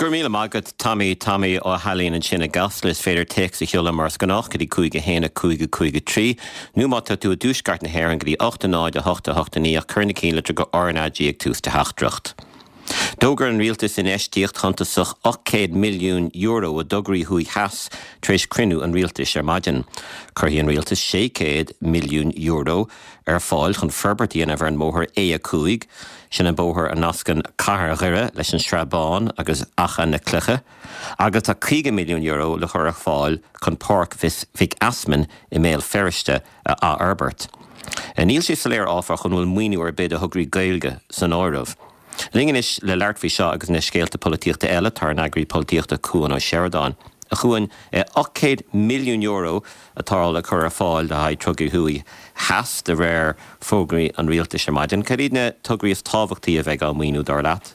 Go raibh míle maith agat Tommy, Tommy Ó hAilín ansin i gCasla. Is féidir téacs a sheoladh mar is gnách go dtí 5 1 5 5 3 nó má tá tú i dtuaisceart na hÉireann go dtí 8 0 8 8 9 ach cuir na cinnlitir go RnaG ag tús do theachtaireacht. D'fhógair an rialtas infheistíocht shuntasach €800 milliún i dtograí thuaidh theas tar éis cruinniú an rialtais ar maidin. Cuirfidh an rialtas €600 milliún ar fáil chun forbairt a dhéanamh ar an mbóthar A5, sin an bóthar a nascann cathair Dhoire leis an Srath Bán agus Achadh na Cloiche, agus tá €50 milliún le cur ar fáil chun Páirc Mhic Easmainn i mBéal Feirste a athfhorbairt. Níl sé soiléir, áfach, an bhfuil maoiniú ar bith do thograí Gaeilge san áireamh. Linn anois le labhairt faoi seo agus na scéalta polaitíochta eile tá ár n-eagraí polaitíochta Cuan Ó Seireadáin. A Chuain, €800 milliún atá le cur ar fáil le haghaidh tograí thuaidh theas de réir fógraí an rialtais ar maidin. Cad iad na tograí is tábhachtaí a bheidh á maoiniú dar leat?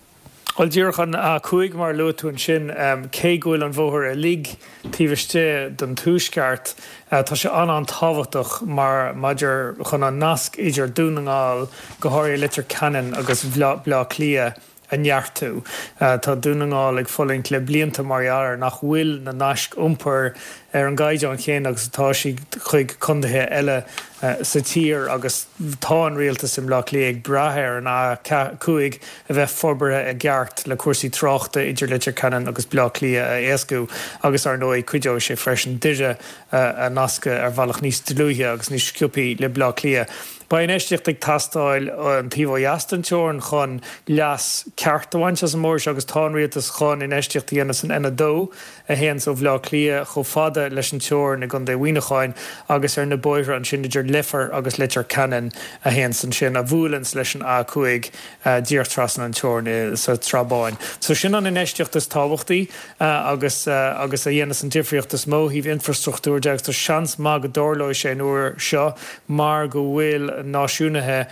Bhuel, díreach an A5 mar a luaigh tú ansin, cé go bhfuil an bhóthar uilig taobh istigh den tuaisceart, tá sé an-an-tábhachtach mar maidir chun an nasc idir Dún na nGall, go háirithe Leitir Ceanainn agus Baile Átha Cliath a neartú. Tá Dún na nGall ag fulaingt le blianta mar gheall ar nach bhfuil na naisc iompair ar an gcaighdeán chéanna agus atá siad chuig contaetha eile sa tír agus tá an rialtas i mBleá Cliath ag brath ar an A5 a bheith forbartha i gceart le cúrsaí tráchta idir Leitir Ceanainn agus Bleá Cliath a éascú agus ar ndóigh cuideoidh sé freisin Doire a nascadh ar bhealach níos dlúithe agus níos sciobthaí le Bleá Cliath. Beidh infheistíocht ag teastáil an taobh ó dheas den teorainn chun leas ceart a bhaint as an mbóthar seo agus tá an rialtas chun infheistíocht a dhéanamh san N2 a théanns ó Bhleá Cliath chomh fada leis an teorainn i gContae Mhuineacháin agus ar na bóithre ansin idir Leifear agus Leitir Ceanainn a théanns ansin, a bhuaileanns leis an A5 díreach trasna an teorainn sa tSrath Báin. So sin an infheistíocht is tábhachtaí agus agus a dhéanas an difríocht is mó ó thaobh infrastruchtúir de agus tá seans maith go dtarlóidh sé an uair seo mar go bhfuil náisiúnaithe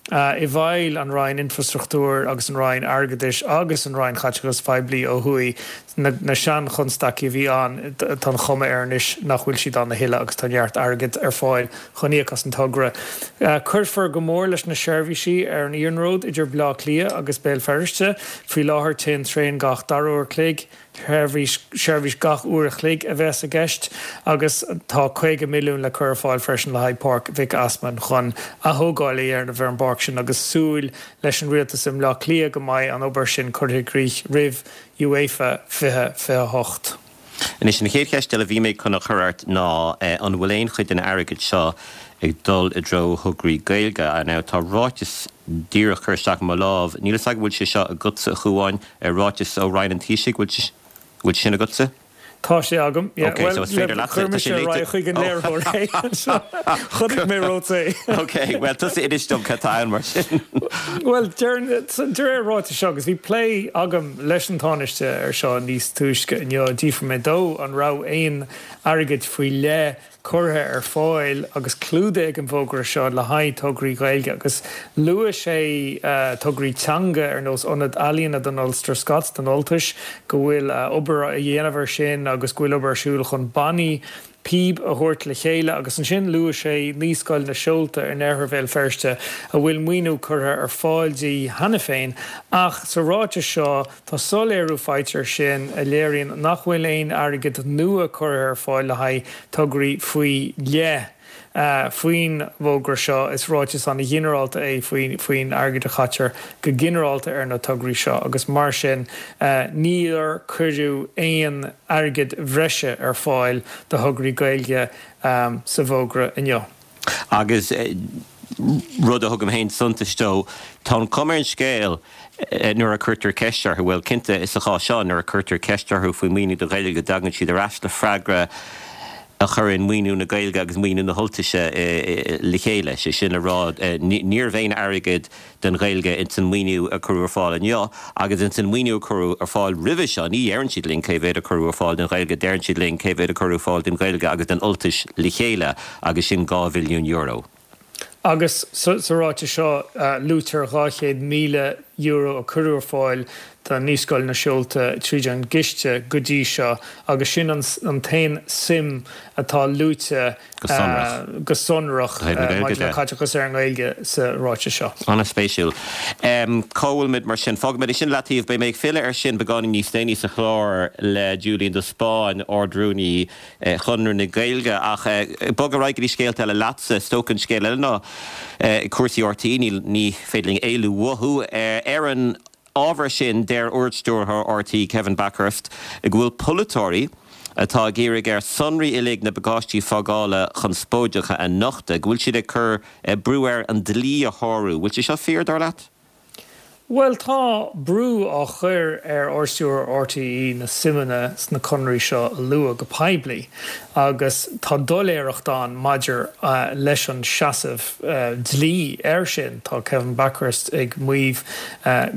i bhfeighil an Roinn Infrastruchtúir agus an Roinn Airgeadais agus an Roinn Chaiteachais Phoiblí ó thuaidh. Na seanchonstaicí a bhí ann, tá an chuma air anois nach bhfuil siad ann a thuilleadh agus tá neart airgid ar fáil chun íoc as an togra. Cuirfear go mór leis na seirbhísí ar an iarnród idir Baile Átha Cliath agus Béal Feirste. Faoi láthair téann traein gach dara uair chloig. Seirbhís, seirbhís gach uair a chloig a bheas i gceist agus tá 50 milliún le cur ar fáil freisin le haghaidh Páirc Mhic Easmainn chun athógáil a dhéanamh ar an bpáirc sin agus súil leis an rialtas i mBleá Cliath go mbeidh an obair sin curtha i gcrích roimh UEFA 2028. Anois, an chéad cheist eile a bhí mé chun a chur ort ná an bhfuil aon chuid den airgead seo ag dul i dtreo thograí Gaeilge? Now, tá ráiteas díreach curtha isteach i mo lámh, níl a fhios agam an bhfuil sé seo agatsa, a Chuáin, ráiteas ó Roinn an Taoisigh, bhfuil bhfuil sé sin agatsa? Tá sé agam, yeah. Ok, so is féidir leatsa, chuir mise ar aghaidh chuig an léiritheoir é anseo. Chonaic mé romhat é. Ok, bhuel tusa inis dom cad tá ann mar sin. Bhuel, de réir ráitis seo, agus bhí plé agam leis an Tánaiste ar seo níos túisce inniu, d'fhiafraigh mé dó an raibh aon airgead faoi leith curtha ar fáil agus clúdaithe ag an bhfógra seo le haghaidh tograí Gaeilge agus luaigh sé tograí teanga ar nós Ionad Ealaíona don Ulster Scots, don Ultais, go bhfuil obair á dhéanamh ar sin agus go bhfuil obair ar siúl chun bannaí píob a thabhairt le chéile agus ansin luaigh sé Naíscoil na Seolta in oirthear Bhéal Feirste a bhfuil maoiniú curtha ar fáil di cheana féin ach sa ráiteas seo Tá soiléiriú faighte air sin a léiríonn nach bhfuil aon airgead nua curtha ar fáil le haghaidh tograí faoi leith faoin bhfógra seo. Is ráiteas an-ghinearálta é faoin airgead a chaitear go ginearálta ar na tograí seo agus mar sin níor cuireadh aon airgead bhreise ar fáil do thograí Gaeilge sa bhfógra inniu. Agus rud a thugaim féin suntas dó, tá an chuma ar an scéal nuair a cuirtear ceist orthu, bhuel, cinnte, sa chás seo, nuair a cuirtear ceist orthu faoi mhaoiniú do Ghaeilge, go dtagann siad ar ais le freagra a chuireann maoiniú na Gaeilge agus maoiniú na hUltaise le chéile. Sé sin le rá, níorbh aon airgead don Ghaeilge ins an maoiniú a cuireadh ar fáil inniu agus ins an maoiniú a cuireadh ar fáil roimhe seo. Ní dheireann siad linn cé mhéad a cuireadh ar fáil don Ghaeilge, deireann siad linn cé mhéad a cuireadh ar fáil don Ghaeilge agus don Ultais le chéile agus sin €2 bhilliún. Agus sa ráiteas seo luaitear €200,000. a cuireadh ar fáil do Naíscoil na Seolta tríd an gciste go dtí seo agus sin an t-aon suim atá luaite go sonrach maidir le caiteachas ar an nGaeilge sa ráiteas seo. An-spéisiúil. Cá bhfuilimid mar sin? Fágfaimid é sin i leataobh. Beidh mé ag filleadh air sin beagáinín níos déanaí sa chlár le Julian de Spáinn, Ard-Rúnaí Chonradh na Gaeilge. Ach bog ar aghaidh go dtí scéalta eile leatsa. Is dócha an scéal eile ná cúrsaí RTÉ, ní féidir linn éalú uathu. Ar an ábhar sin, deir Ardstiúrthóir RTÉ, Kevin Bakhurst, go bhfuil polaiteoirí atá ag iarraidh air sonraí uilig na bpacáistí fágála conspóideacha a nochtadh, go bhfuil siad ag cur brú air an dlí a shárú. Bhfuil sé seo fíor, dar leat? Bhuel, tá brú á chur ar Ardstiúrthóir RTÉ na suimeanna sna conarthaí seo a lua go poiblí agus tá doiléireacht ann maidir leis an seasamh dlí air sin. Tá Kevin Bakhurst ag maíomh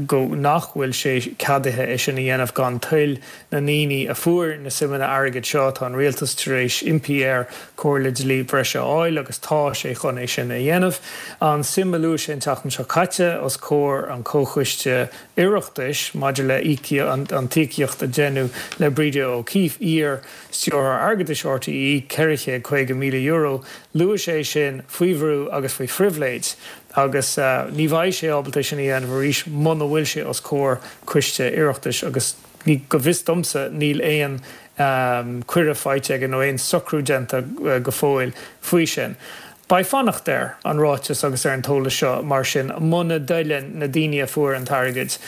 go nach bhfuil sé ceadaithe é sin a dhéanamh gan toil na ndaoine a fuair na suimeanna airgid seo. Tá an rialtas tar éis impí air comhairle dlí breise a fháil agus tá sé chun é sin a dhéanamh. An suim a luaigh sé an tseachtain seo caite os comhair an Chomhchoiste Oireachtais maidir le an t-íocaíocht a deineadh le Breda O'Keeffe, iar Stiúrthóir Airgeadais RTÉ, €450,000, luaigh sé sin faoi bhrú agus faoi phribhléid agus ní bheidh sé ábalta é sin a dhéanamh arís muna bhfuil sé os comhair Coiste Oireachtais agus Ní, go bhfios domsa, níl aon cuireadh faighte aige nó aon socrú déanta go fóill faoi sin. Beidh fanacht ar an ráiteas agus ar an t-eolas seo mar sin muna dtoileann na daoine a fuair an t-airgead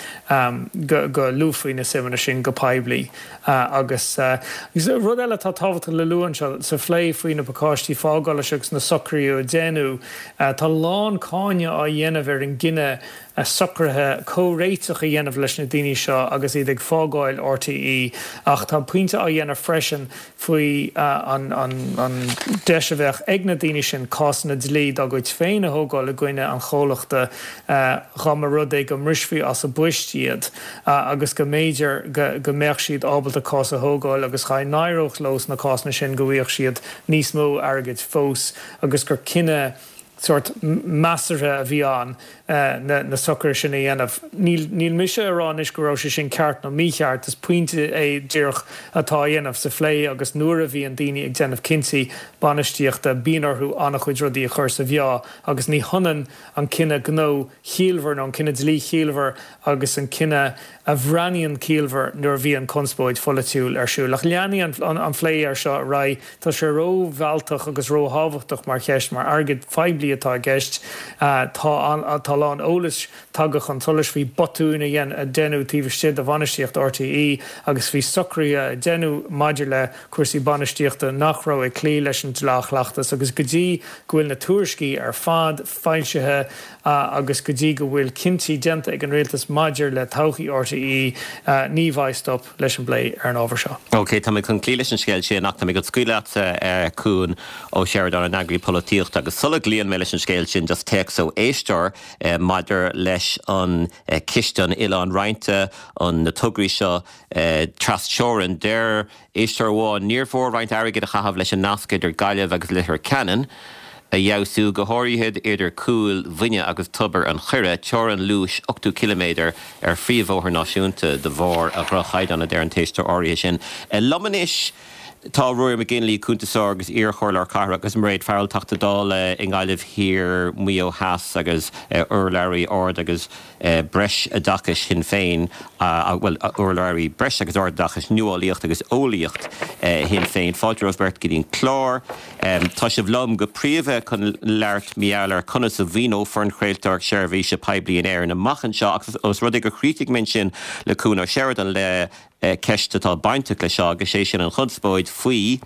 go luafaí na suimeanna sin go poiblí. Agus rud eile atá tábhachtach le lua anseo, sa phlé faoi na pacáistí fágála seo agus na socruithe a déanadh, tá a lán cáineadh á dhéanamh ar an gcinneadh socruithe comhréiteach a dhéanamh leis na daoine seo agus iad ag fágáil RTÉ ach tá pointe á dhéanamh freisin faoi an deis a bheadh ag na daoine sin cásanna dlí dá gcuid féin a thógáil i gcoinne an chomhlachta dá mba rud é go mbrisfí as a bpoist iad agus go mb'fhéidir go mbeadh siad ábalta cás a thógáil agus dá n-éireodh leo sna cásanna sin go bhfaigheadh siad níos mó airgid fós agus gur cinneadh sórt measartha a bhí ann na socruithe sin a dhéanamh. Níl mise ag rá anois go raibh sé sin ceart nó mícheart, is pointe é díreach atá á dhéanamh sa phlé agus nuair a bhíonn daoine ag déanamh cinntí bainistíochta bíonn orthu an-chuid rudaí a chur sa mheá agus ní hionann an cinneadh gnó chiallmhar nó an cinneadh dlí chiallmhar agus an cinneadh a bhreathnaíonn ciallmhar nuair a bhíonn conspóid pholaitiúil ar siúl. Ach leanfaidh an plé air seo ar aghaidh. Tá sé ró-mhealltach agus ró-thábhachtach mar cheist, mar airgead phoiblí atá i gceist. Tá a lán eolais tagtha chun solais faoi botúin a deineadh taobh istigh de bhainistíocht RTÉ agus faoi socruithe a deineadh maidir le cúrsaí bainistíochta nach raibh ag cloí leis an dleá-chleachtas agus go dtí go bhfuil na tuairiscí ar fad foilsithe agus go dtí go bhfuil cinntí déanta ag an Rialtas maidir le todhchaí RTÉ, ní bheidh stop leis an bplé ar an ábhar seo. OK, tá mé chun cloí leis an scéal sin ach tá mé chun scaoileadh leatsa, Cuan Ó Seireadáin, an eagraí polaitíochta, agus sula gcloíonn mé leis an scéal sin, just téacs ó éisteoir maidir leis an Ciste an Oileáin Roinnte, an na tograí seo tras-teorann. Deir Éisteoir amháin, Níor mhór roinnt airgid a chaitheamh leis an nasc idir Gaillimh agus Leitir Ceanainn a fheabhsú, go háirithe idir Cúil Mhuine agus Tobar an Choire, teorainn luais 80 ciliméadar ar phríomhbhóthar náisiúnta de bharr a dhroch-chaighdeán, a deir an t-éisteoir áirithe sin. Liom anois tá Ruairí McGinley, cuntasóir agus iar-chomhairleoir cathrach, agus Mairéad Farrell, Teachta Dála i nGaillimh Thiar, Maigh Eo Theas agus urlabhraí ard agus Breisoideachais Shinn Féin, bhuel, urlabhraí Breis agus Ardoideachais, Nuálaíocht agus Eolaíocht Shinn Féin. Fáilte romhaibh beirt go dtí an clár. Tá sibh liom go príomha chun labhairt mar gheall ar conas a mhaoineofar an chraoltóireacht seirbhíse poiblí in Éirinn amach anseo ach os rud é gur chríochnaigh mé ansin le Cuan Ó Seireadáin le ceist atá bainteach leis seo agus sé sin an chonspóid faoi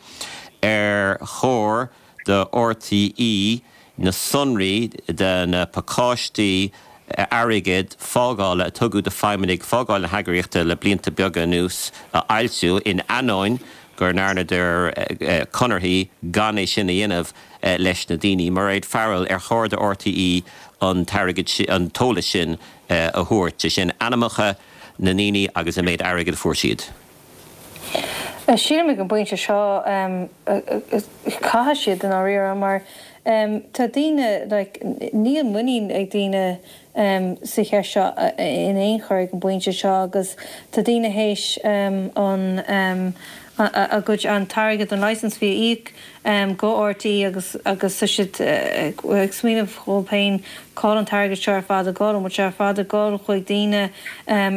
ar chóir do RTÉ na sonraí de na pacáistí airgid fágála a tugadh do feidhmeannaigh fágáil na heagraíochta le blianta beaga anuas a fhoilsiú, in ainneoin go ndearnadar conarthaí gan é sin a dhéanamh leis na daoine. Mairéad Farrell, ar chóir do RTÉ an t-airgead, an t-eolas sin a thabhairt, sé sin ainmneacha na ndaoine agus an méid airgid a fuair siad? Sílim ag an bpointe seo caithfidh siad i ndáiríre mar tá daoine like níl muinín ag daoine sa cheist seo in aon chor ag an bpointe seo agus tá daoine théis an a gcuid an t-airgead an licence fee a íoc go RTÉ agus agus tá siad ag smaoineamh dhóibh féin cá bhfuil an t-airgead seo ar fad ag dul, an bhfuil sé ar fad ag dul chuig daoine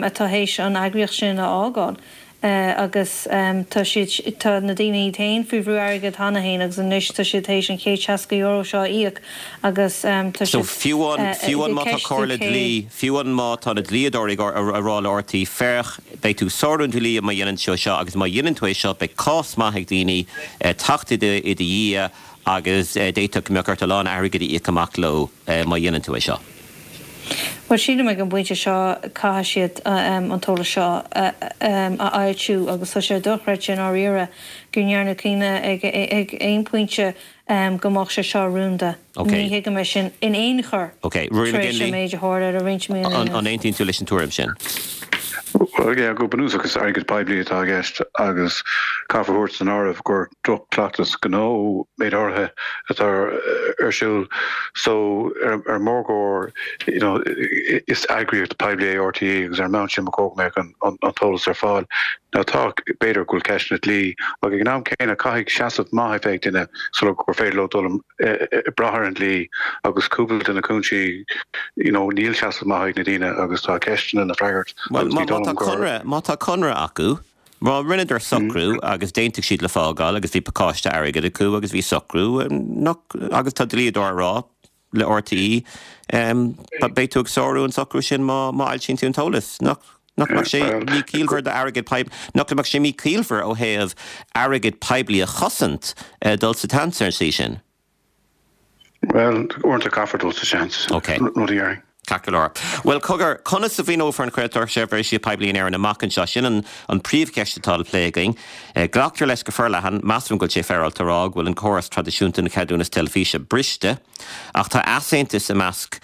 atá théis an eagraíocht sin a fhágáil. agus tá siad, tá na daoine iad féin faoi bhrú airgid cheana féin agus anois tá siad théis an €160 seo a íoc agus tá So siad fiú amháin, ag fiú amháin má tá ceistiú comhairle cé. dlí, fiú amháin má tá na dlíodóirí ag a rá le RTÉ, féach, beidh tú ag sárú an dlí má dhéanann tú seo agus má dhéanann tú é seo beidh cás maith ag daoine teacht i do, i do dhiaidh agus d'fhéadfadh go mbeadh ort a lán airgid a íoc amach leo má dhéanann tú é seo. Bhuel, sílim ag an bpointe seo caithfidh siad an t-eolas seo a fhoilsiú agus tá sé dochreidte i ndáiríre go ndearnadh cinneadh ag aon phointe go mbeadh sé seo rúnda. Ní thuigim é sin in aon chor tar éis an méid a tharla le roinnt míonna anuas. An aontaíonn tú leis an tuairim sin? Bhuel, yeah, go bunúsach is airgead poiblí atá i gceist agus caithfear a thabhairt san áireamh gur droch-chleachtas gnó méid áirithe atá ar siúl so ar an mórgóir you know is eagraíocht poiblí é RTÉ agus ar an mbonn sin ba chóir go mbeadh an t-eolas ar fáil. Now tá, b'fhéidir go bhfuil ceisteanna dlí ach ag an am céanna caithfidh seasamh maith a bheith ag duine sula gur féidir leo dul ag brath ar an dlí agus cúpla de na cúinsí you know níl seasamh maith ag na daoine agus tá ceisteanna le freagairt Bhuel agus má ní dóigh tá liom gur. conradh, má tá conradh acu Má rinneadar socrú agus d'aontaigh siad le fágáil agus bhí pacáiste airgid acu agus bhí socrú, nach, agus tá dlíodóir ag rá le RTÉ, beidh tú ag sárú an socrú sin má má fhoilsíonn tú an t-eolas. Nach, nach mbeadh sé míchiallmhar d'airgead poib, nach mbeadh sé míchiallmhar ó thaobh airgead poiblí a chosaint dul sa tseans ar an tslí sin? Bhuel, uaireanta caithfear dul sa seans, Ok. rud a dhéarfainn. Ceart go leor. Bhuel, cogar, conas a mhaoineofar an chraoltóireacht seirbhíse poiblí in Éirinn amach anseo? Sin an an príomhcheist atá le plé againn. Glactar leis go forleathan, measaim go bhfuil sé féaráilte a rá, go bhfuil an córas traidisiúnta den cheadúnas teilifíse briste. Ach tá easaontas i measc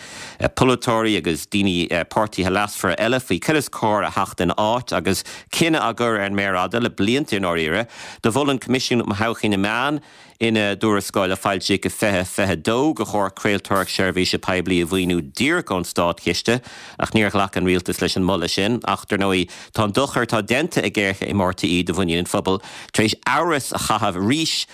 polaiteoirí agus daoine, páirtithe leasmhara eile faoi cad is cóir a theacht ina áit agus cinneadh á gcur ar an méar fhada le blianta i ndáiríre. Do mhol an Coimisiún um Thodhchaí na Meán, Ina dtuarascáil a foilsíodh i 2022 gur chóir craoltóireacht seirbhíse poiblí a mhaoiniú díreach ón státchiste, ach níor ghlac an rialtas leis an moladh sin. Ach, dar ndóigh, tá an dochar atá déanta ag géarchéim RTÉ do mhuinín an phobail tar éis amhras a chaitheamh arís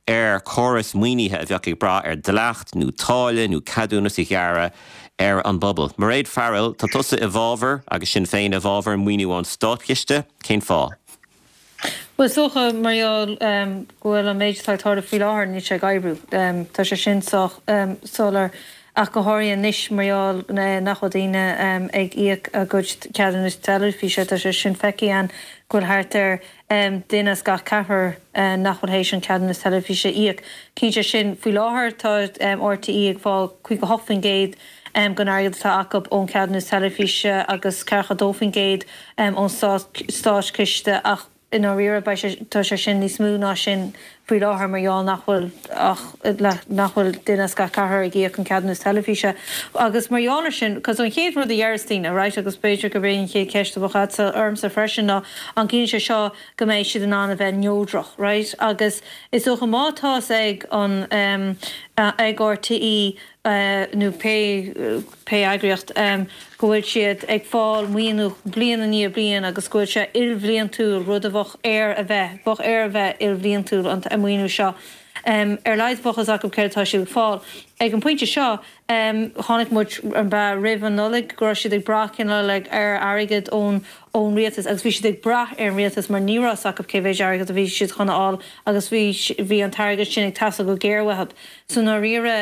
ar chóras maoinithe a bheadh ag brath ar dhleacht nó táille nó ceadúnas a ghearradh ar an bpobal. Mairéad Farrell, tá tusa i bhfabhar, agus Sinn Féin i bhfabhar, maoiniú ón státchiste. Cén fáth? Bhuel, is dócha, mar gheall go bhfuil an méid atá ag tarlú faoi láthair, níl sé ag oibriú. Tá sé sin sách soiléir, ach go háirithe anois mar gheall nach bhfuil daoine ag íoc a gcuid ceadúnas teilifíse. Tá sé sin feicthe againn go bhfuil thart ar duine as gach ceathrar nach bhfuil théis an ceadúnas teilifíse a íoc. Cinnte sin, faoi láthair tá RTÉ ag fáil 58% den airgead atá acu ón cheadúnas teilifíse agus 42% ón státchiste ach i ndáiríre beidh sé, tá sé sin níos mó ná sin faoi láthair mar gheall nach bhfuil ach, nach bhfuil duine as gach ceathrar ag íoc an ceadúnas teilifíse. Agus mar gheall ar sin, cos an chéad rud a deireas daoine, right, agus b'fhéidir gurb é an chéad cheist a bheadh agatsa ormsa freisin ná an gciallaíonn sé seo go mbeidh siad in ann a bheith neodrach, right? Agus is dócha má tá's ag an, ag RTÉ nó pé pé eagraíocht, go bhfuil siad ag fáil maoiniú bliain i ndiaidh bliain agus go bhfuil sé ilbhliantúil, rud a bheadh air a bheith, bheadh air a bheith ilbhliantúil an maoiniú seo. Ar a laghad bheadh fhios acu céard atá siad ag fáil. Ag an bpointe seo, chonaic muid, an b'ea, roimh an Nollaig go raibh siad ag brath cineál like ar airgead ón ón rialtas agus bhí siad ag brath ar an rialtas mar ní raibh fhios acu cé mhéid airgead a bhí siad chun a fháil agus bhí bhí an t-airgead sin ag teastáil go géar uathu. So i ndáiríre,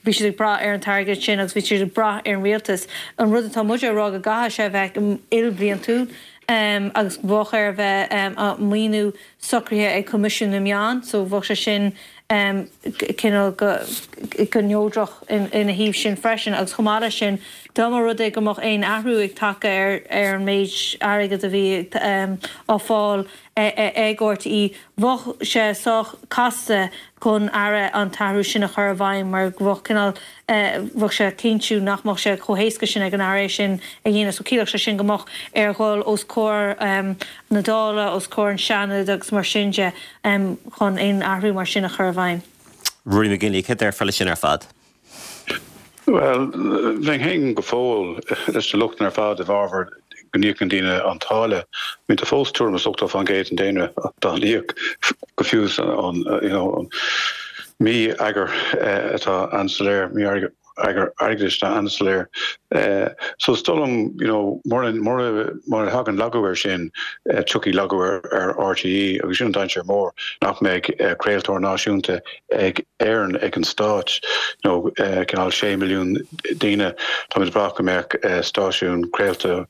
bhí siad ag brath ar an t-airgead sin agus bhí siad ag brath ar an rialtas. An rud atá muide a rá go gcaithfidh sé a bheith ilbhliantúil agus bheadh air a bheith maoiniú socraithe ag Coimisiún na Meán, so bheadh sé sin cineál go neodrach ina thaobh sin freisin agus chomh maith leis sin. Dá mba rud é go mbeadh aon athrú ag teacht ar ar an méid airgid a bhí á fáil ag RTÉ, bheadh sé sách casta don Aire an t-athrú sin a chur i bhfeidhm mar bheadh cineál, bheadh sé cinntiú nach mbeadh sé chomh héasca sin ag an Aire é sin a dhéanamh. So chiallódh sé sin go mbeadh air dhul os comhair na Dála, os comhair an Seanad agus mar sin de chun aon athrú mar sin a chur i bhfeidhm. Ruairí McGinley, céard a déarfá leis sin ar fad? Bhuel, bheinn féin go fóill leis na lochtanna ar fad i bhfabhar go n-íocann daoine an táille. I mean tá fós tuairim is 80% den daonra dá n-íoc go fiú an you know an mí-eagar atá an-soiléir, mí-eagar airgeadais atá an-soiléir. So is dóigh liom you know mura mura mura thagann lagú air sin tiocfaidh lagú ar ar RTÉ agus sin an dainséar mór nach mbeidh craoltóir náisiúnta ag Éirinn, ag an Stát, nó cineál 6 milliún daoine. Táimid ag brath go mbeadh stáisiún craolta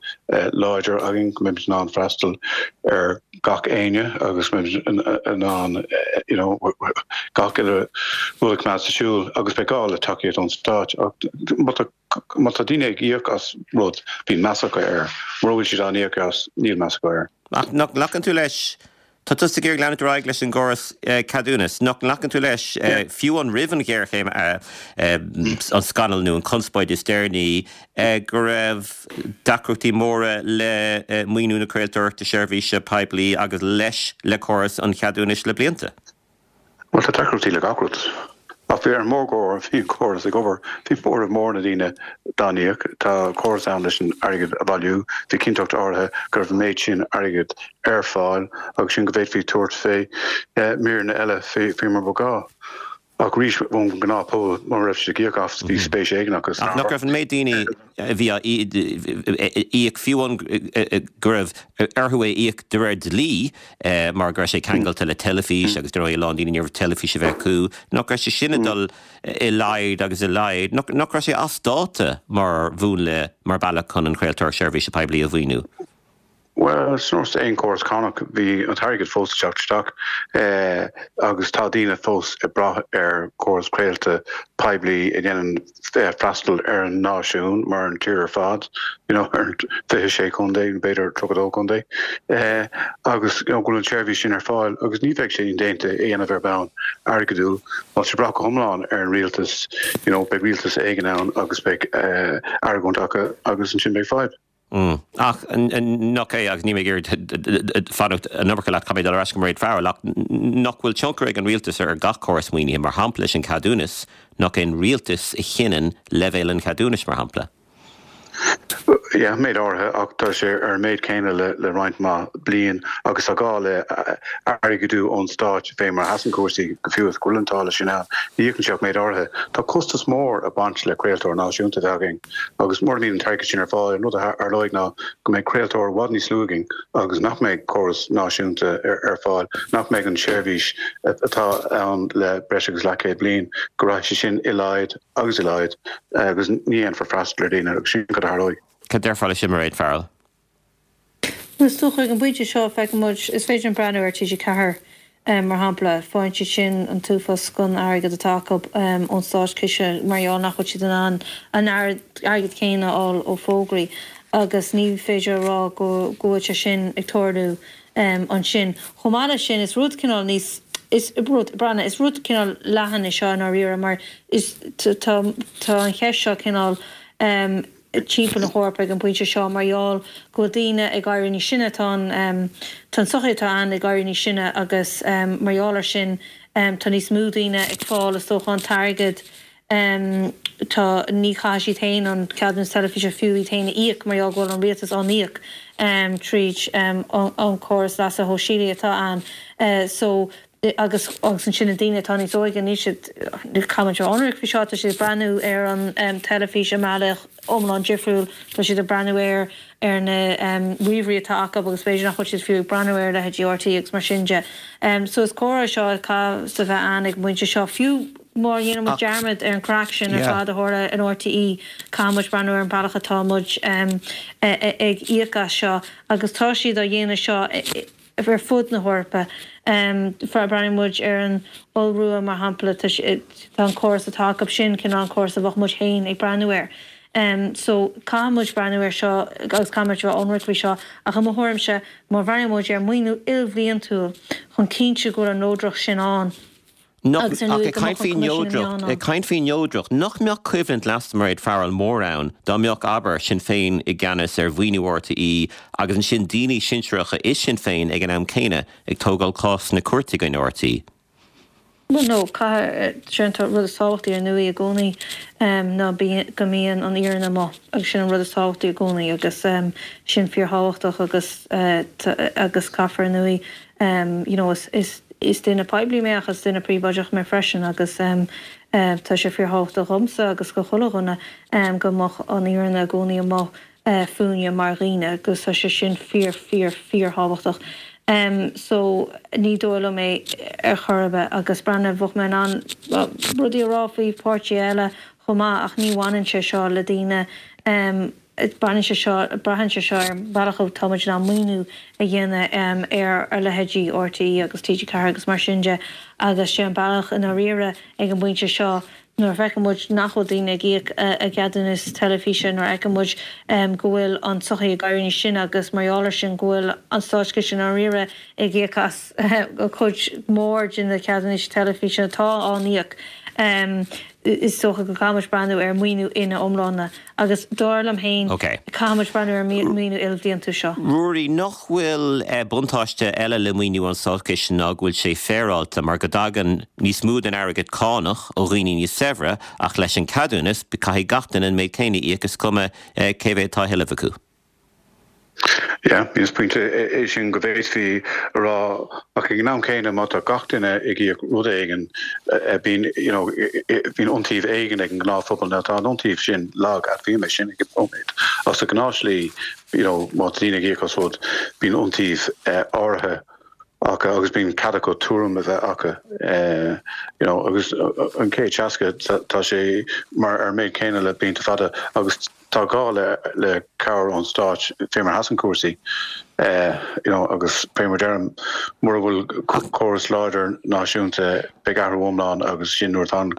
láidir againn, go mbeimid in ann freastal ar gach éinne agus go mbeimid in ann you know gach uile rud a choimeád sa siúl agus beidh gá le tacaíocht ón Stát. Ach má tá má tá daoine ag íoc as rud, bíonn meas acu air. Mura bhfuil siad á n-íoc as, níl meas acu air. Ach nach nglacann tú leis Tá tusa ag iarraidh leanúint ar aghaidh leis an gcóras ceadúnas. Nach nglacann tú leis, fiú amháin roimh an ghéarchéim, an scannal nó an chonspóid is deireanaí, go raibh deacrachtaí móra le maoiniú na craoltóireachta seirbhíse poiblí agus leis le córas an cheadúnais le blianta? Bhuel, tá deacrachtaí le gach rud. Ach bhí ar an mórgóir, bhí an córas ag obair. Bhí móramh mór na ndaoine dá n-íoc. Tá córas ann leis an airgead a bhailiú. Bhí cinnteacht áirithe go raibh an méid sin airgid ar fáil agus sin go bhféadfaí tabhairt fé míreanna eile faoi mar ba ghá. Ach arís, ón ngnáthphobal, mura raibh siad ag íoc as, bhí spéis éigin acu san Ach nach raibh an méid daoine a bhí á íoc, fiú amháin go raibh orthu é a íoc de réir dlí mar go raibh sé ceangailte le teilifís agus dar ndóigh a lán daoine ní raibh teilifís a bheith acu, nach raibh sé sin ag dul i laghad agus i laghad, nach raibh sé as dáta mar mhúnla, mar bhealach chun an chraoltóireacht seirbhíse poiblí a mhaoiniú? Bhuel, ar nós aon chóras cánach, bhí an t-airgead fós ag teacht isteach agus tá daoine fós ag brath ar chóras craolta poiblí a dhéanann freastal ar an náisiún mar an tír ar fad, you know, ar an 26 contae, nó b'fhéidir 32 contae, agus you know, go bhfuil an tseirbhís sin ar fáil agus ní bheidh sé indéanta é a dhéanamh ar bhonn airgeadúil. Má tá sé ag brath go hiomlán ar an rialtas, you know, beidh rialtas éigin ann agus beidh argóint acu agus ansin beidh fadhb. Ach nach é, agus níl mé ag iarraidh fanacht an iomarca leat, caithfidh mé dul ar ais go Mairéad Farrell, ach nach bhfuil tionchar ag an rialtas ar gach córas maoinithe, mar shampla leis an cheadúnas, nach é an rialtas a chinneann leibhéal an cheadúnais, mar shampla? Yeah, méid áirithe, ach tá sé ar an méid céanna le roinnt mhaith bliain agus tá gá le airgeadú ón stát fé mar a sheasann cúrsaí, go fiú is go bhfuil an táille sin ann, ní íocann sé ach méid áirithe. Tá costas mór ag baint le craoltóir náisiúnta a bheith againn. Agus mura mbíonn an t-airgead sin ar fáil, an rud a tharlóidh ná go mbeidh craoltóir i bhfad níos lú againn agus nach mbeidh córas náisiúnta ar fáil, nach mbeidh an tseirbhís atá ann le breis agus leathchéad bliain, go rachaidh sé sin i laghad agus i laghad agus ní dhéanfar freastal ar dhaoine agus sin cad a tharlóidh. Cad déarfá leis sin, Mairéad Farrell? Bhuel, is dócha ag an bpointe seo, feiceann muid, is féidir linn breathnú ar TG4 mar shampla, faigheann siad sin an t-uafás den airgead atá acu ón státchiste mar gheall nach bhfuil siad in ann an airgead céanna a fháil ó fógraí agus ní féidir a rá go bhfuil sé sin ag tarlú ansin. Chomh maith leis sin, is rud cineál níos, is rud, breathnaigh, is rud cineál leathan é seo i ndáiríre mar is, tá, tá an cheist seo cineál, timpeall na hEorpa ag an bpointe seo mar gheall go bhfuil daoine ag éirí níos sine, tá an tá an tsochaí atá ann ag éirí níos sine agus mar gheall air sin tá níos mó daoine ag fáil is dócha an t-airgead tá ní chaithfidh siad féin an ceadúnas teilifíse fiú iad féin a íoc mar gheall go bhfuil an rialtas á n-íoc tríd an córas leasa shóisialaigh atá ann so agus agus ansin na daoine atá níos óige, níl siad, caithfidh muid a bheith ionraic faoi seo, tá siad ag breathnú ar an teilifís i mbealach iomlán difriúil, tá siad ag breathnú air ar na ríomhairí atá acu agus b'fhéidir nach bhfuil siad fiú ag breathnú ar leithéidí RTÉ agus mar sin de. So is comhrá é seo a chaithfeas a bheith ann ag an bpointe seo, fiú má dhéanann muid dearmad ar an chraic sin ar fad a tharla in RTÉ, caithfidh muid breathnú ar an bealach atá muid ag íoc as seo agus tá siad á dhéanamh seo ar fud na hEorpa. Breathnaíonn muid ar an Iorua, mar shampla, tá an córas atá acu sin cineál an córas a bheadh muid féin ag breathnú air. So caithfidh muid breathnú ar seo agus caithfidh muid a bheith ionraic faoi seo ach i mo thuairimse má bhreathnaíonn muid ar maoiniú ilbhliantúil chun cinntiú go bhfuil an neodracht sin ann Nach, agus ar ach ndóigh ag go caint mbeadh an faoi Coimisiún na Meán neodracht, ann. ag caint faoi neodracht, nach mbeadh coimhlint leasa Mairéad Farrell mór ann dá mbeadh, abair, Sinn Féin i gceannas ar mhaoiniú RTÉ agus ansin daoine sinsearacha i Sinn Féin ag an am céanna ag tógáil cás sna cúirteanna i gcoinne RTÉ? Bhuel, no, caithfidh, sé an rud is tábhachtaí ar ndóigh i gcónaí ná go mbíonn an fhírinne amuigh agus sin an rud is tábhachtaí i gcónaí agus sin fíorthábhachtach agus agus caithfear ar ndóigh you know is is is duine poiblí mé ach is duine príobháideach mé freisin agus tá sé fíorthábhachtach dhomsa agus do chuile dhuine go mbeadh an fhírinne i gcónaí amuigh fúinne mar dhaoine agus tá sé sin fíor fíor fíor thábhachtach. So ní dóigh liom é ar chor ar bith agus breathnaigh bheadh mé in ann rudaí a rá faoi pháirtithe eile chomh maith ach ní bhaineann sé seo le daoine baineann sé seo braitheann sé seo ar an bhealach a tá muid in ann maoiniú a dhéanamh ar ar leithéidí RTÉ agus TG4 agus mar sin de agus sé an bealach i ndáiríre ag an bpointe seo Nuair a fheiceann muid nach bhfuil daoine ag íoc a gceadúnas teilifíse, nuair a fheiceann muid go bhfuil an tsochaí ag éirí níos sine agus mar gheall air sin go bhfuil an státchiste i ndáiríre ag íoc as cuid mhór de na ceadúnais teilifíse atá á n-íoc, is dócha go gcaithfidh muid breathnú ar mhaoiniú ina iomláine. Agus dar liom féin, caithfidh muid breathnú ar an maoiniú ilbhliantúil seo. Ruairí, nach bhfuil buntáiste eile le maoiniú ón Státchiste ná go bhfuil sé féaráilte mar go dtagann níos mó den airgead cánach ó dhaoine níos saibhre ach leis an ceadúnas caithfidh gach duine an méid céanna a íoc is cuma cé mhéad atá á thuilleamh acu. Yeah, is pointe é sin go bhféadfaí a rá ach ag an am céanna má tá gach duine ag íoc rud éigin bíonn you know bíonn iontaoibh éigin ag an ngnáthphobal. Now tá an iontaoibh sin lag, admhaím é sin ag an nóiméad ach sa ghnáthshlí you know má tá daoine ag íoc as rud bíonn iontaoibh áirithe acu agus bíonn cead acu tuairim a bheith acu you know agus an 160 tá sé mar ar an méid céanna le blianta fada agus Tá gá le cabhair ón stát fé mar a sheasann cúrsaí you know agus fé mar deirim mura bhfuil córas láidir náisiúnta beidh athrú iomlán agus sin nuair atá an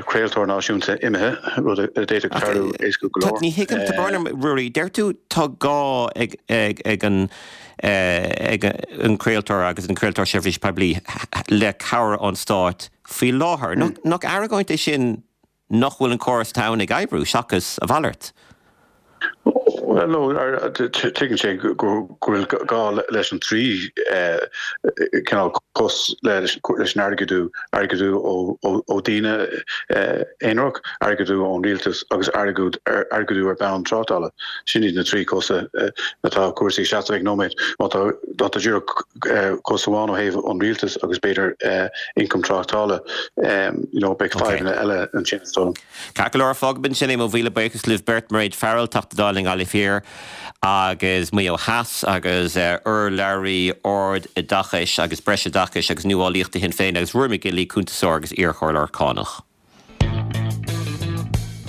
craoltóir náisiúnta imithe, rud a d'fhéadfadh tarlú éasca go leor. Ní thuigim, tá brón orm, Ruairí, deir tú tá gá ag an ag an craoltóir agus an craoltóir seirbhíse poiblí le cabhair ón stát faoi láthair. Nach argóint é sin nach bhfuil an córas atá ann ag oibriú, seachas a mhalairt. Bhuel, no, tuigeann sé go bhfuil gá leis an trí cineál cos leis an airgeadú, airgeadú ó daoine aonarach, airgeadú ón rialtas agus airgeadú ar bonn tráchtála. Sin iad na trí cosa atá cúrsaí ag seasamh ag nóiméad. Má tá má tá díreach cos amháin ó thaobh an rialtais agus b'fhéidir ioncam tráchtála, you know, beidh fadhbanna eile ansin is dóigh liom. Ceart go leor, fágfaidh ansin é, mo mhíle buíochas libh beirt, Mairéad Farrell, Teachta Dála i nGaillimh Thiar agus Maigh Eo Theas agus urlabhraí Ard-Oideachais agus Breisoideachais agus Nuálaíochta Shinn Féin agus Ruairí McGinley, cuntasóir agus iarchomhairleoir cánach.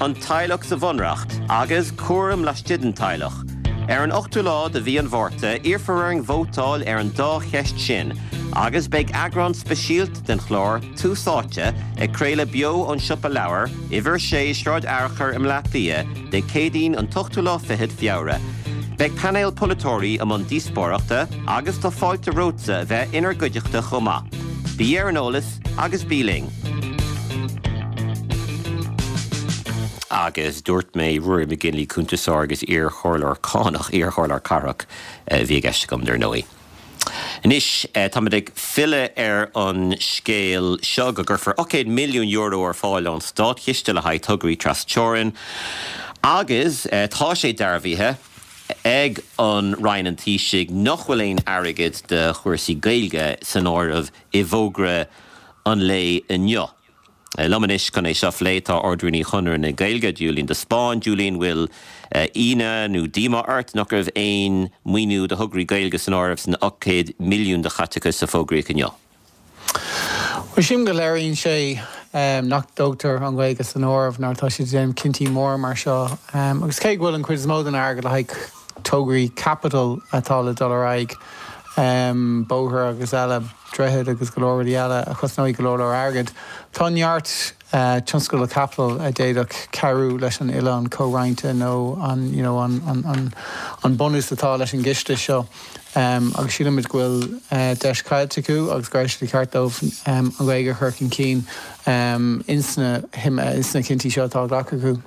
An teaghlach sa Bhunreacht agus cúram laistigh den teaghlach. Ar an ochtú lá de mhí an Mhárta, iarrfar orainn vótáil ar an dá cheist sin agus beidh eagrán speisialta den chlár Tús Áite ag craoladh beo ón Siopa Leabhar, Uimhir 6, Sráid Fhearchair i mBleá Cliath, Dé Céadaoin an t-ochtú lá fichead Feabhra. Beidh painéal polaiteoirí i mbun díospóireachta agus tá fáilte romhatsa a bheith inár gcuideachta chomh maith. Bí ar an eolas agus bí linn! Agus dúirt mé Ruairí McGinley, cuntasóir agus iar-chomhairleoir cánach, iar-chomhairleoir cathrach a bhí i gceist agam, dar ndóigh. Anois, táimid ag filleadh ar an scéal seo go gcuirfear €800 milliún ar fáil ón státchiste le haghaidh tograí trasteorann agus tá sé dearbhaithe ag an Roinn an Taoisigh nach bhfuil aon airgead do chúrsaí Gaeilge san áireamh i bhfógra an lae inniu. Liom anois chun é seo a phlé tá Ard-Rúnaí Chonradh na Gaeilge, Julian de Spáinn. Julian, bhfuil ionadh nó díomá ort nach raibh aon maoiniú do thograí Gaeilge san áireamh san 800 milliún de chaiteachas a fógraíodh inniu? Bhuel, sílim go léiríonn sé nach dtógtar an Ghaeilge san áireamh nuair atá siad ag déanamh cinntí móra mar seo. Agus cé go bhfuil an chuid is mó den airgead le haghaidh tograí caipitil atá le dul ar aghaidh. Bóthar agus eile, droichid agus go leor rudaí eile a chosnóidh go leor leor airgid. Tá neart tionscadal caipitil a d'fhéadfadh cabhrú leis an oileán comhroinnte nó an you know an an an bunús atá leis an gciste seo agus sílimid go bhfuil deis caillte acu agus go raibh sé de cheart dóibh an Ghaeilge a chur chun cinn ins na ins na cinntí seo atá á ghlacadh acu.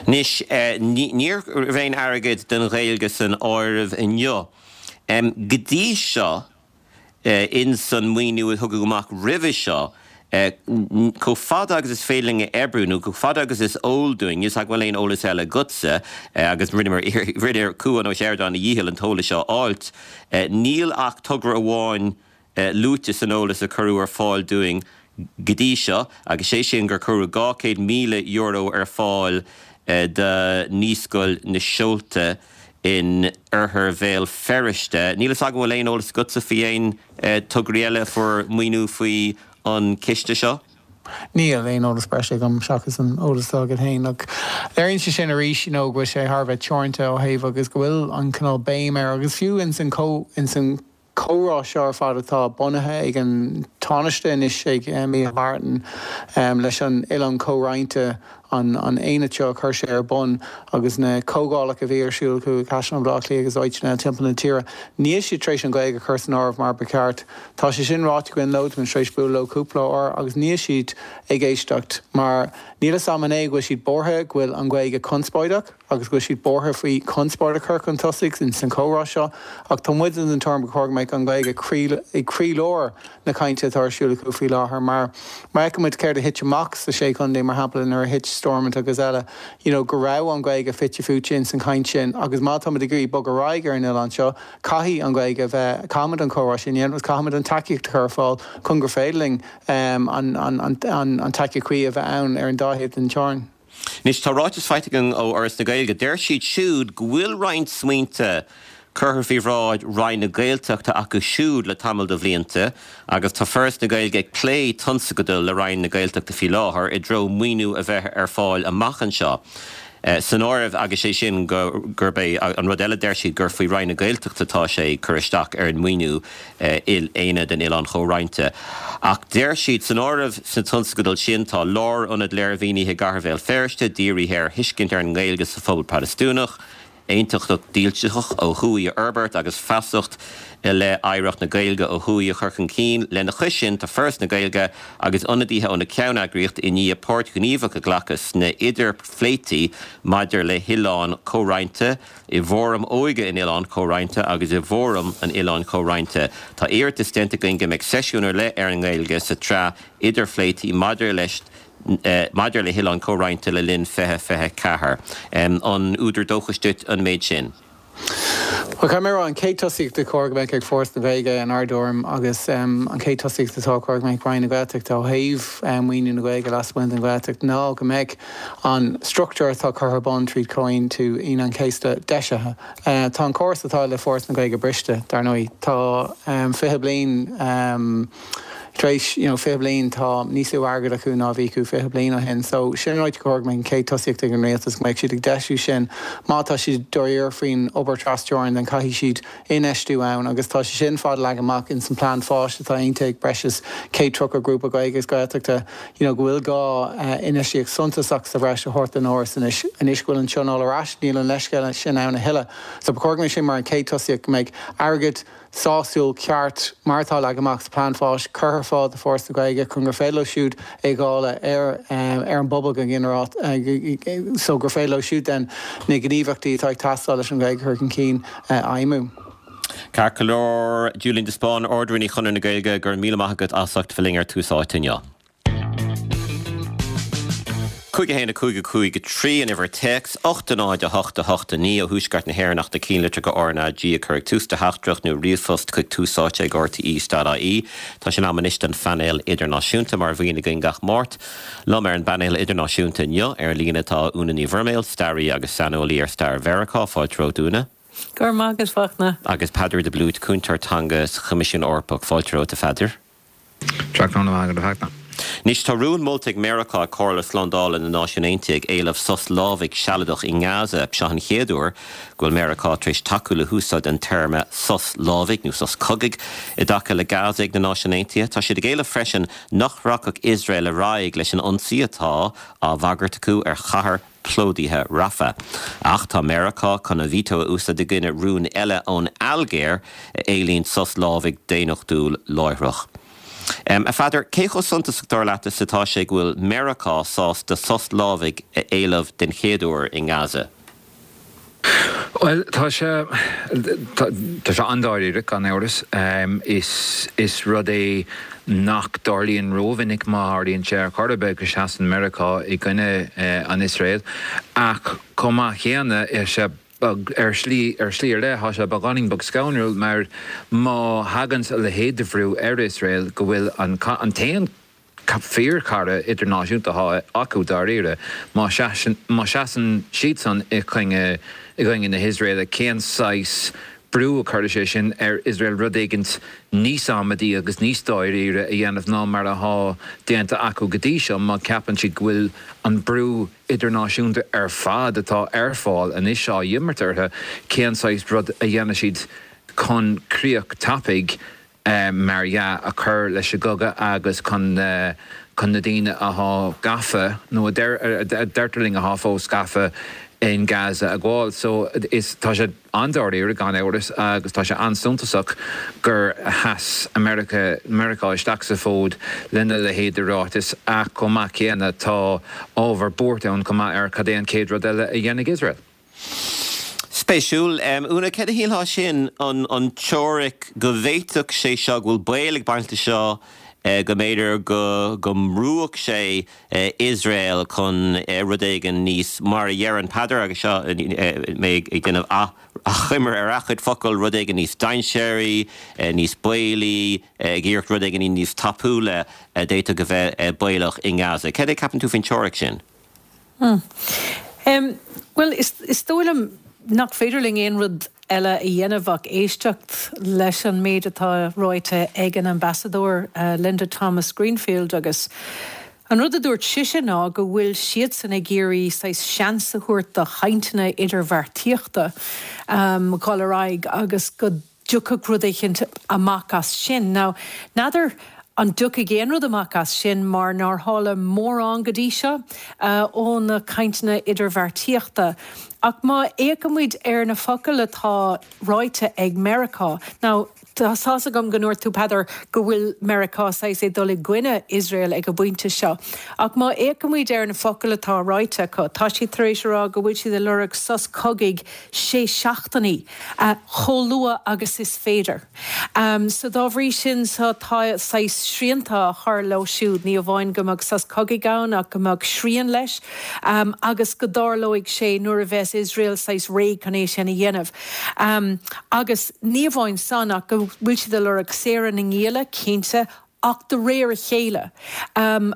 Anois, ní raibh aon airgead don Ghaeilge san áireamh inniu. Go dtí seo, ins an maoiniú a tugadh amach roimhe seo, chomh fada agus is féidir linn a oibriú, nó chomh fada agus is eol dúinn, níl 's agam an bhfuil aon eolas eile agatsa, agus rinneamar rinne Cuan Ó Seireadáin a dhícheall an t-eolas seo a fháilt, níl ach togra amháin luaite san eolas a cuireadh ar fáil dúinn go dtí seo, agus sé sin gur cuireadh €200,000 ar fáil do Naíscoil na Seolta in oirthear Bhéal Feirste. Níl fhios agam an bhfuil aon eolas agatsa faoi aon tograí eile a fuair maoiniú faoi an ciste seo? Níl aon eolas breise agam seachas an eolas atá agat féin. Ach léiríonn sé sin arís you know go bhfuil sé thar a bheith teoranta ó thaobh agus go bhfuil an cineál béim air agus fiú ins an ins an comhrá seo ar fad atá bunaithe ag an Tánaiste anois, ag Micheál Martin, leis an Oileán Comhroinnte, an aonad seo a chuir sé ar bun agus na comhdhálacha a bhí ar siúl acu i gCaisleán Bhaile Átha Cliath agus áiteanna eile timpeall na tíre, níl siad tar éis an Ghaeilge a chur san áireamh mar ba cheart. Tá sé sin ráite againn leo, táimid tar éis bualadh leo cúpla uair agus níl siad ag éisteacht mar níl fhios a'm an é go bhfuil siad buartha go bhfuil an Ghaeilge conspóideach. agus go bhfuil siad buartha faoi chonspóid a chur chun tosaigh ins an chomhrá seo, ach tá muide den tuairim gur chóir go mbeadh an Ghaeilge i gcroílár na cainte atá ar siúl acu faoi láthair mar má fheiceann muid céard a thit amach sa Sé Chontae, mar shampla, nuair a thit Stormont agus eile, you know, go raibh an Ghaeilge fite fuaite ins an chaint sin agus má tá muid ag iarraidh bogadh ar aghaidh ar an oileán seo, caithfidh an Ghaeilge a bheith, caithfimid an comhrá sin a dhéanamh agus caithfimid an tacaíocht a chur ar fáil chun gur féidir linn an tacaíocht chuí a bheith ann ar an dá thaobh den teorainn. Anois, tá ráiteas faighte againn ó Fhoras na Gaeilge. Deir siad siúd go bhfuil roinnt smaointe curtha faoi bhráid Roinn na Gaeltachta acu siúd le tamall de bhlianta agus tá Foras na Gaeilge ag plé tionscadail le Roinn na Gaeltachta faoi láthair i dtreo maoiniú a bheith ar fáil amach anseo san áireamh agus sé sin gurb é an rud eile deir siad gur faoi Roinn na Gaeltachta atá sé cur isteach ar an maoiniú Aonad an Oileáin Chomhroinnte. Ach deir siad, san áireamh sna tionscadail sin tá lárionad léirmhínithe i gcathair Bhéal Feirste, dírithe ar thuiscint ar an nGaeilge sa phobal Protastúnach, aontachtacht dílseach ó thuaidh a fhorbairt agus feasacht i leith oidhreacht na Gaeilge ó thuaidh a chur chun cinn. Lena chois sin, tá Foras na Gaeilge agus ionadaithe ó na ceanneagraíochtaí i ndiaidh páirt ghníomhach a ghlacadh sna idirphléití maidir le hoileán comhroinnte, i bhFóram Óige an Oileáin Chomhroinnte agus i bhFóram an Oileáin Chomhroinnte. Tá iarratas déanta againn go mbeidh seisiún ar leith ar an nGaeilge sa tsraith idirphléití maidir leis maidir le hOileán Comhroinnte le linn 2024. An údar dóchais duit an méid sin? Bhuel, caithfidh mé a rá, an chéad tosaíocht a chóir go mbeadh ag Foras na Gaeilge inár dtuairim agus an chéad tosaíocht atá chóir go mbeadh Roinn na Gaeltachta ó thaobh maoiniú na Gaeilge lasmuigh den Ghaeltacht ná go mbeadh an struchtúr atá curtha ar bun tríd Comhaontú Aoine an Chéasta deisithe. Tá an córas atá le Foras na Gaeilge briste, dar ndóigh. Tá 20 bliain tar éis, you know, 20 bliain, tá níos lú airgid acu ná a bhí acu 20 bliain ó shin. So, sin an áit gur chóir go mbeadh an chéad tosaíocht ag an rialtas, go mbeadh siad ag deisiú sin. Má tá siad dáiríre faoin obair trasteorann, then caithfidh siad infheistiú ann agus tá sé sin fad leagtha amach ins an plean fáis atá aontaithe ag breis is 130 grúpa Gaeilge agus Gaeltachta you know go bhfuil gá infheistíocht suntasach sa bhreis a thabhairt don Fhoras anois. Anois go bhfuil an Tionól ar ais níl an leithscéal sin ann a thuilleadh. So ba chóir go mbeadh sin mar an chéad tosaíocht go mbeadh airgead sásúil ceart mar atá leagtha amach sa plean fáis curtha ar fáil do Foras na Gaeilge chun gur féidir leo siúd é a dháileadh ar ar an bpobal go ginearálta so gur féidir leo siúd then na gníomhaíochtaí atá ag teastáil leis an Ghaeilge a chur chun cinn a fheidhmiú. Ceart go leor, Julian de Spáinn, Ard-Rúnaí Chonradh na Gaeilge, go raibh míle maith agat as ucht bheith linn ar Tús Áite inniu. 5 1 5 5 3 an uimhir téacs, 8 0 8 8 9 ó Thuaisceart na hÉireann ach na cinnlitreacha RnaG a chur ag tús do theachtaireacht nó ríomhphost chuig túsáite ag rte.ie. Tá sé in am anois don phainéal idirnáisiúnta mar a bhíonn againn gach Máirt. Liom ar an bpainéal idirnáisiúnta inniu ar líne tá Úna Ní Bhroiméil, staraí agus saineolaí ar stair Mheiriceá. Fáilte romhat, Úna. Go raibh maith agat, Fachtna. Agus Peadar de Blúit, cúntóir teanga sa Choimisiún Eorpach. Fáilte romhat, a Pheadair. Tráthnóna maith agat, a Fhachtna. Anois, tá rún molta ag Meiriceá ag Comhairle Slándála na Náisiún Aontaithe ag éileamh sos lámhaigh sealadach i nGaza. Seo an chéad uair go bhfuil Meiriceá tar éis tacú le húsáid an téarma sos lámhaigh nó sos cogaidh i dtaca le Gaza ag na Náisiúin Aontaithe. Tá siad ag éileamh freisin nach rachadh Iosrael ar aghaidh leis an ionsaí atá á bhagairt acu ar chathair plódaithe Rafah. Ach tá Meiriceá chun a veto a úsáid i gcoinne rún eile ón Ailgéir a éilíonn sos lámhaigh daonnachtúil láithreach. A Pheadair, cé chomh suntasach dar leat is atá sé go bhfuil Meiriceá sásta sos lámhaigh a éileamh den chéad uair i nGaza? Bhuel, tá sé, tá sé an-dáiríre, gan amhras. Is, is rud é nach dtarlaíonn rómhinic, má tharlaíonn sé ar chor ar bith, go seasann Meiriceá i gcoinne an Iosrael. Ach chomh maith céanna, tá sé beag, ar shlí, ar shlí ar leith, tá sé beagáinín beag scanrúil mar má thagann a leithéid de bhrú ar Iosrael go bhfuil an, an t-aon fíorchara idirnáisiúnta atá acu dáiríre. Má sheasann siadsan i gcoinne i gcoinne na hIosraeile, cén saghas brú a chuirfidh sé sin ar Iosrael rud éigint níos amaidí agus níos dáiríre a dhéanamh ná mar atá déanta acu go dtí seo má cheapann siad go bhfuil an brú idirnáisiúnta ar fad atá ar fáil anois á imirt orthu, cén saghas rud a dhéanfaidh siad chun críoch tapaidh mar dhea, a chur leis an gcogadh agus chun chun na daoine athá gafa, nó a deir a deirtear linn athá fós gafa in Gaza a ghabháil. So is tá sé an-dáiríre gan amhras agus tá sé an-suntasach gur sheas America Meiriceá isteach sa bhfód lena leithéid de ráiteas ach chomh maith céanna tá ábhar buartha ann chomh maith ar cad é an chéad rud eile a dhéanfaidh Iosrael. Spéisiúil. Úna, céard a shílfeá sin, an teoiric go bhféadfadh sé seo, go bhfuil baol ag baint leis seo, go mb'fhéidir go go mbrúfadh sé Iosrael chun rud éigin níos, mar a deireann Peadar, agus seo mé ag déanamh achoimre ar a chuid focal, rud éigin níos dainséaraí, níos baolaí, ag iarracht rud éigin níos tapúla a d'fhéadfadh a bheith baolach i nGaza. Céard é a ceapann tú faoin teoiric sin? Bhuel, is dóigh liom nach féidir linn aon rud eile a dhéanamh ach éisteacht leis an méid atá ráite ag an Ambasadóir Linda Thomas-Greenfield agus an rud a dúirt sise ná go bhfuil siadsan ag iarraidh saghas seans a thabhairt do chainteanna idirbheartaíochta dhul ar aghaidh agus go dtiocfadh rud éicint amach as sin. Now, n'fheadar an dtiocfaidh aon rud amach as sin mar nár tharla mórán go dtí seo ó na cainteanna idirbheartaíochta. Ach má fhéachaimid ar na focail atá ráite ag Meiriceá, now, tá 's agam go ndúirt tú, Peadar, go bhfuil Meiriceá saghas ag dul i gcoinne Iosrael ag an bpointe seo. Ach má fhéachaimid ar na focail atá ráite acu, tá siad tar éis a rá go bhfuil siad ag lorg sos cogaidh sé seachtainí. chomh luath agus is féidir. So dá bhrí sin so tá saghas srianta á chur leo siúd, ní amháin go mbeadh sos cogaidh ann ach go mbeadh srian leis agus go dtarlóidh sé nuair a bheas Iosrael saghas réidh chun é sin a dhéanamh. Agus ní amháin san ach go bhfuil siad ag lorg saoradh na ngialla, cinnte, ach de réir a chéile,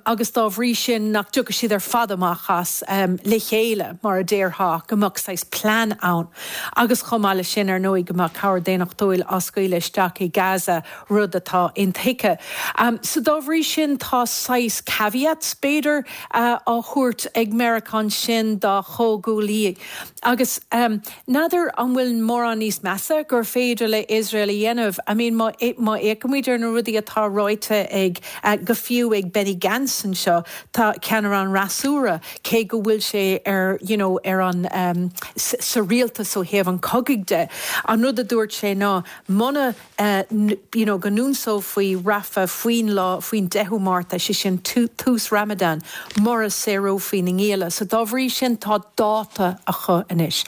agus dá bhrí sin nach dtiocfaidh siad ar fad amach as le chéile, mar a déarfá, ach go mbeadh saghas plean ann. Agus chomh maith leis sin, ar ndóigh, go mbeadh cabhair daonnachtúil á scaoileadh isteach i Gaza, rud atá intuigthe. So dá bhrí sin, tá saghas caveats, b'fhéidir, á thabhairt ag Meiriceá ansin dá chomhghuaillí. Agus n'fheadar an bhfuil mórán níos measa gur féidir le Iosrael a dhéanamh. I mean má má fhéachaimid ar na rudaí atá ráite ag, go fiú ag Benny Gantz anseo, tá ceannaire an fhreasúra, cé go bhfuil sé ar you know ar an sa rialtas ó thaobh an chogaidh de, an rud a dúirt sé ná muna you know go n-ionsófaí Rafah faoin lá, faoin 10ú Márta, sé sin tús Ramadan, mura saorófaí na ngialla. So dá bhrí sin tá dáta acu anois.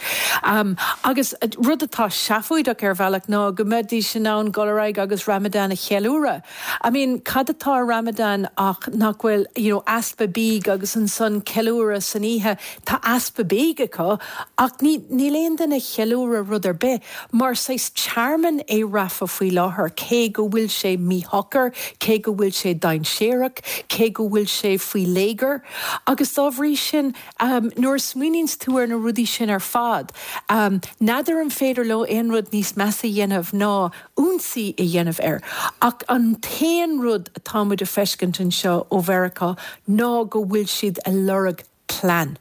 Agus rud atá seafóideach ar bhealach ná go mbeidís in ann dul ar aghaidh agus Ramadan a cheiliúradh. I mean cad atá i Ramadan ach nach bhfuil you know easpa bídh agus ansan ceiliúradh san oíche. Tá easpa bídh acu ach ní, níl aon duine ag ceiliúradh rud ar bith. Mar saghas tearmann é Rafah faoi láthair, cé go bhfuil sé míshocair, cé go bhfuil sé dainséarach, cé go bhfuil sé faoi léigear. Agus dá bhrí sin, nuair a smaoiníonns tú ar na rudaí sin ar fad, n'fheadar an féidir leo aon rud níos measa a dhéanamh ná ionsaí a dhéanamh air. Ach an t-aon rud. rud atá muid a feiscint anseo ó Mheiriceá ná go bhfuil siad a lorg plean.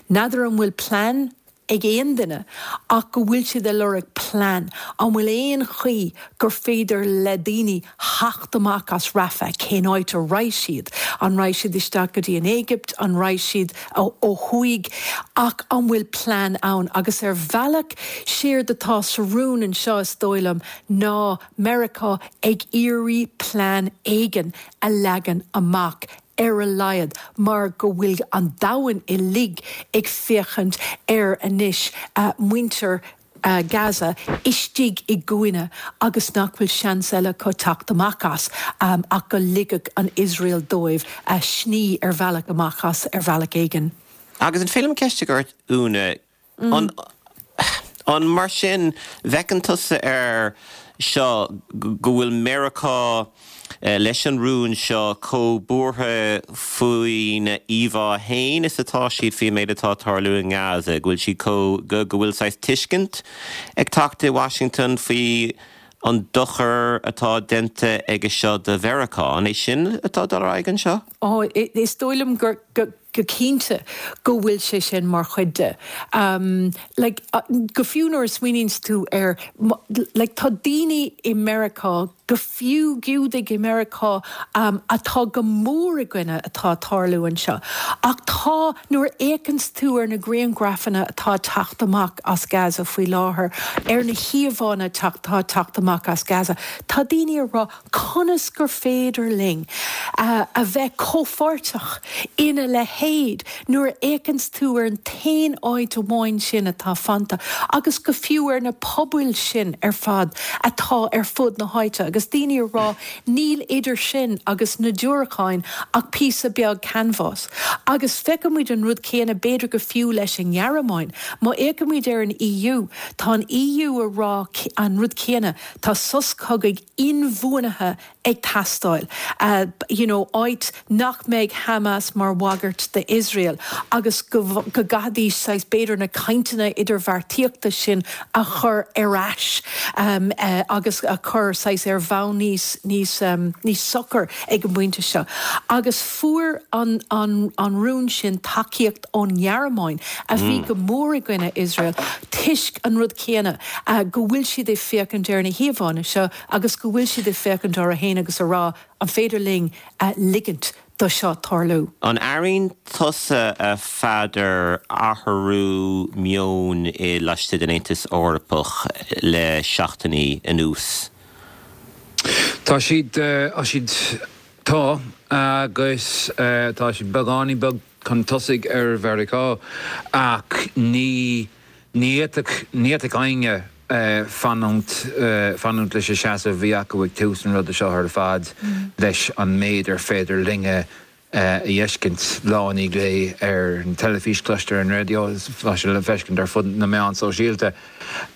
N'fheadar an bhfuil plean ag aon duine ach go bhfuil siad ag lorg plean, an bhfuil aon chaoi gur féidir le daoine theacht amach as Rafah, cén áit a raghaidh siad, an raghaidh siad isteach go dtí an Éigipt, an raghaidh siad ó thuaidh, ach an bhfuil plean ann? Agus ar bhealach, séard atá sa rún anseo is dóigh liom ná Meiriceá ag iarraidh plean éigin a leagan amach ar a laghad, mar go bhfuil an domhan uilig ag féachaint ar anois muintir Gaza istigh i gcúinne agus nach bhfuil seans eile acu teacht amach as ach go ligfeadh an Iosrael dóibh sní ar bhealach amach as ar bhealach éigin. Agus an féidir liom ceist a chur ort, Úna? An, an mar sin, bhfeiceann tusa air seo go bhfuil Meiriceá leis an rún seo chomh buartha faoina íomhá fhéin is atá siad faoin méid atá ag tarlú i nGaza, go bhfuil siad chomh, go bhfuil saghas tuiscint ag teacht i Washington faoi an dochar atá déanta aige seo do Mheiriceá? An é sin atá ag dul ar aghaidh anseo? Ó, is dóigh liom gur, go. go cinnte go bhfuil sé sin mar chuid de. Like, go fiú nuair a smaoiníonns tú ar, like, tá daoine i Meiriceá, go fiú Giúdaigh i Meiriceá, atá go mór i gcoinne atá ag tarlú anseo. Ach tá, nuair a fhéachanns tú ar na grianghrafanna atá ag teacht amach as Gaza faoi láthair, ar na híomhánna atá ag teacht amach as Gaza, tá daoine ag rá, Conas gur féidir linn a bheith comhpháirteach ina leithéid nuair a fhéachanns tú ar an t-aon áit amháin sin atá fanta agus go fiú ar na pobail sin ar fad atá ar fud na háite agus daoine ag rá níl idir sin agus na diúracáin ach píosa beag canbhás. Agus feicimid an rud céanna b'fhéidir go fiú leis an nGearmáin. Má fhéachaimid ar an EU, tá an EU ag rá an rud céanna, tá sos cogaidh inbhuanaithe ag teastáil, you know áit nach mbeidh Hamas mar bhagairt d'Iosrael agus go go gcaithfidís saghas b'fhéidir na cainteanna idirbheartaíochta sin a chur ar ais agus a chur saghas ar bhonn níos níos níos socair ag an bpointe seo. Agus fuair an an an rún sin tacaíocht ón nGearmáin a bhí go mór i gcoinne Iosrael toisc an rud céanna. go bhfuil siad ag féachaint ar na híomhánna seo agus go bhfuil siad ag féachaint orthu féin agus a rá, an féidir linn ligint do seo tarlú? An airíonn tusa, a Pheadair, athrú meoin i laistigh den Aontas Eorpach le seachtainí anuas? Tá siad, tá siad, tá, agus tá siad beagáinín beag chun tosaigh ar Mheiriceá ach ní, Ní fhéadfadh, ní fhéadfadh éinne fanúint, fanúint leis an seasamh a bhí acu ag tús an ruda seo ar fad, leis an méid ar féidir linne a fheiscint lá i ndiaidh lae ar an teilifís, cloistear ar an raidió, tá sé le feiscint ar fud na meán sóisialta.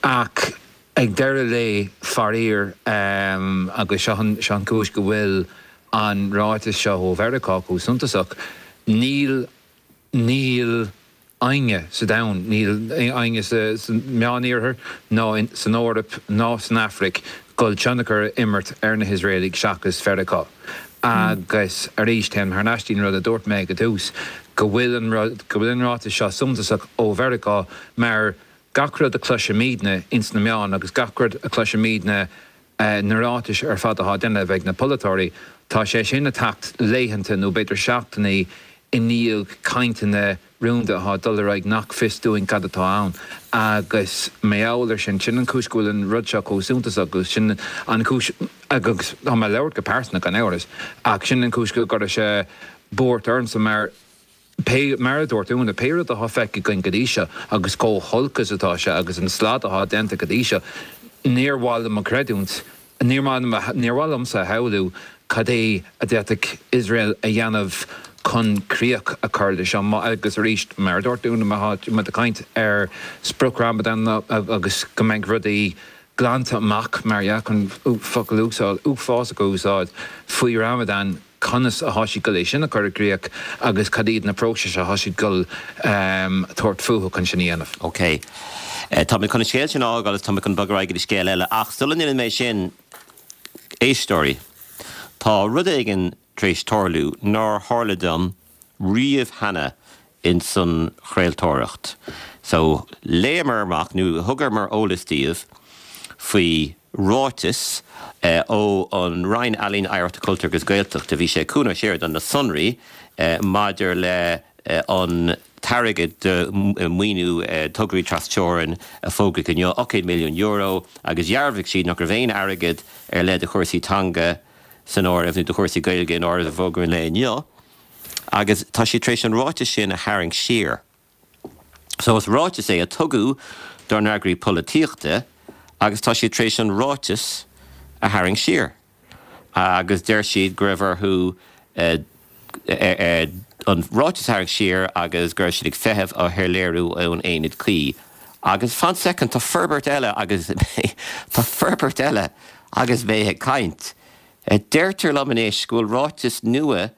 Ach ag deireadh lae, faraor, agus seo an, seo an chúis go bhfuil an ráiteas seo ó Mheiriceá chomh suntasach, níl, níl éinne sa domhan, níl éinne sa Meániarthar ná san Eoraip ná san Afraic dul tionchar a imirt ar na hIosraelaigh seachas Mheiriceá. Agus arís, téim thar n-ais dtí'n rud a dúirt mé ag an tús, go bhfuil an rud, go bhfuil an ráiteas seo suntasach ó Mheiriceá mar gach rud a chloisimidne ins na meáin agus gach rud a chloisimidne na ráitis ar fad atá á déanamh ag na polaiteoirí, tá sé sin ag teacht laethanta nó b'fhéidir seachtainí i ndiaidh cainteanna rúnda atá ag dul ar aghaidh nach fios dúinn cad atá ann. Agus mar gheall ar sin, sin an chúis go bhfuil an rud seo chomh suntasach agus sin an chúis, agus tá mé ag labhairt go pearsanta gan amhras, ach sin an chúis go gcuirfeadh sé buairt ormsa mar, Pé, mar a dúirt Úna, pé rud atá feicthe againn go dtí seo, agus chomh holc is atá sé, agus an slad atá déanta go dtí seo, níor mhaith liom a chreidiúint, níor mhaith liom, níor mhaith liomsa a shamhlú cad é a d'fhéadfadh Iosrael a dhéanamh chun críoch a chur le seo. Agus arís, mar a dúirt Úna, má tá muid ag caint ar sprioc Ramadan agus go mbeidh rudaí glanta amach, mar dhea, chun focal uafásach a úsáid, faoi Ramadan, conas atá siad ag dul é sin a chur i gcríoch agus cad iad na próisis atá siad ag dul tabhairt fúthu chun sin a dhéanamh. OK. Tá mé chun an scéal sin a fhágáil agus tá mé chun bogadh ar aghaidh go dtí scéal eile. Ach sula ndéanfaidh mé sin, éisteoirí. Tá rud éigin tar éis tarlú nár tharla dom riamh cheana ins an chraoltóireacht. So, léamar amach, nó thugamar eolas daoibh faoi ráiteas ó an Roinn Ealaíon, Oidhreachta, Cultúir agus Gaeltachta, bhí sé chugainn séard na sonraí maidir le an t-airgead do mhaoiniú tograí tras-teorann a fógraíodh inniu, €8 milliún, agus dhearbhaigh siad nach raibh aon airgead ar leith do chúrsaí teanga san áireamh, nó do chúrsaí Gaeilge in áireamh i bhfógra an lae inniu, agus tá siad tar éis an ráiteas sin a tharraingt siar. So is ráiteas é a tugadh dár n-eagraí polaitíochta agus tá siad tar éis an ráiteas a tharraingt siar. Agus deir siad go raibh orthu an ráiteas a tharraingt siar agus go raibh siad ag feitheamh ar shoiléiriú ón aonad cuí. Agus fan soicind, tá forbairt eile agus tá forbairt eile agus mé ag caint. Deirtear liom anois go bhfuil ráiteas nua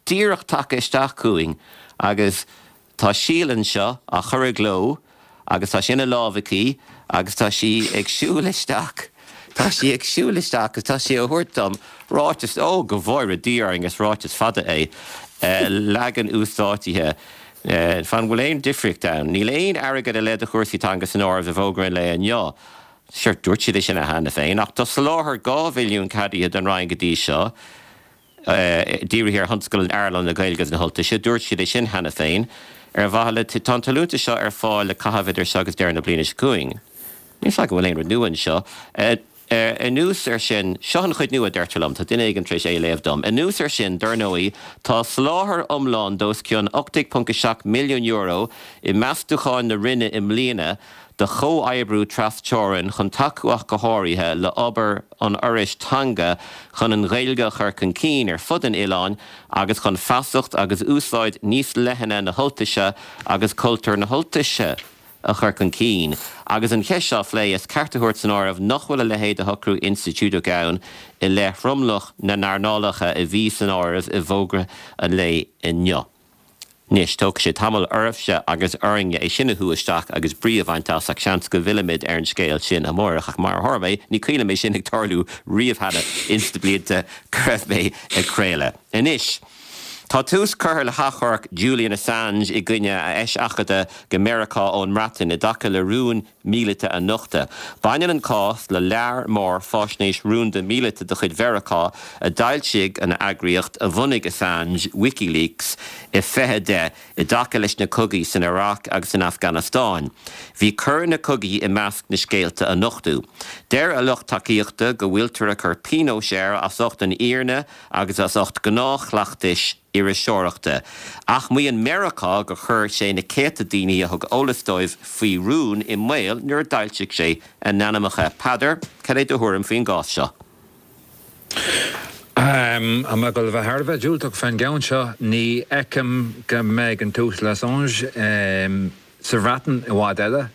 díreach tagtha isteach chugainn agus tá Síle anseo á chur i gcló agus tá sé ina lámh aici agus tá sí ag siúl isteach, tá sí ag siúl isteach agus tá sí á thabhairt dom, ráiteas, ó go bhfóire Dia orainn is ráiteas fada é, leagan uasdátaithe, fan bhfuil aon difríocht ann? Níl aon airgead ar leith do chúrsaí teanga san áireamh i bhfógra an lae inniu. Sure, dúirt siad é sin cheana féin, ach tá soláthar 2 mhilliún ceadaithe don Roinn go dtí seo. dírithe ar thionscal in earnáil na Gaeilge agus na hUltaise. Dúirt siad é sin cheana féin. Ar mhaithe le Tá an t-allúntas seo ar fáil le caitheamh idir seo agus deireadh na bliana seo chugainn. Níl 's agam an bhfuil aon rud nua anseo. Anuas air sin, seo an chuid nua, deirtear liom, tá duine éigin tar éis é a léamh dom. Anuas air sin, dar ndóigh, tá soláthar iomlán d'os cionn €18.7 milliún i meastúcháin na Roinne i mbliana do chomhoibriú tras-teorann chun tacú ach go háirithe le obair an Fhorais Teanga chun an Ghaeilge a chur chun cinn ar fud an oileáin agus chun feasacht agus úsáid níos leithne na hUltaise agus cultúr na hUltaise a chur chun cinn. Agus an cheist seo á phlé, is ceart a thabhairt san áireamh nach bhfuil a leithéid de shocrú institiúideach ann i leith thromlach na n-earnálacha a bhí san áireamh i bhfógra an lae inniu. Anois, tógfaidh sé tamall oraibhse agus orainne é sin a shú isteach agus brí a bhaint as ach seans go bhfillfimid ar an scéal sin amárach. Ach mar a tharla mé, ní cuimhin liom é sin ag tarlú riamh cheana ins na blianta go raibh mé ag craoladh. Anois, tá tús curtha le hachomharc Julian Assange i gcoinne a eiseachadta go Meiriceá ón mBreatain i dtaca le rúin míleata a nochtadh. Baineann an cás le lear mór faisnéis rúnda míleata de chuid Mheiriceá a d'fhoilsigh an eagraíocht a bhunaigh Assange, WikiLeaks, i 2010 i dtaca leis na cogaí san Iaráic agus san Afganastáin. Bhí coir na cogaí i measc na scéalta a nochtadh. Deir a lucht tacaíochta go bhfuiltear ag cur pionóis air as ucht an fhírinne agus as ucht gnáthchleachtais iriseoireachta. Ach maíonn Meiriceá gur chuir sé na céadta daoine a thug eolas dóibh faoi rún i mbaol nuair a d'fhoilsigh sé a n-ainmneacha. Peadar, cad é do thuairim faoin gcás seo? Tá mé ag dul a bheith thar a bheith diúltach fén gceann seo. Ní fheicim go mbeidh an tUasal Assange sa Bhreatain i bhfad eile.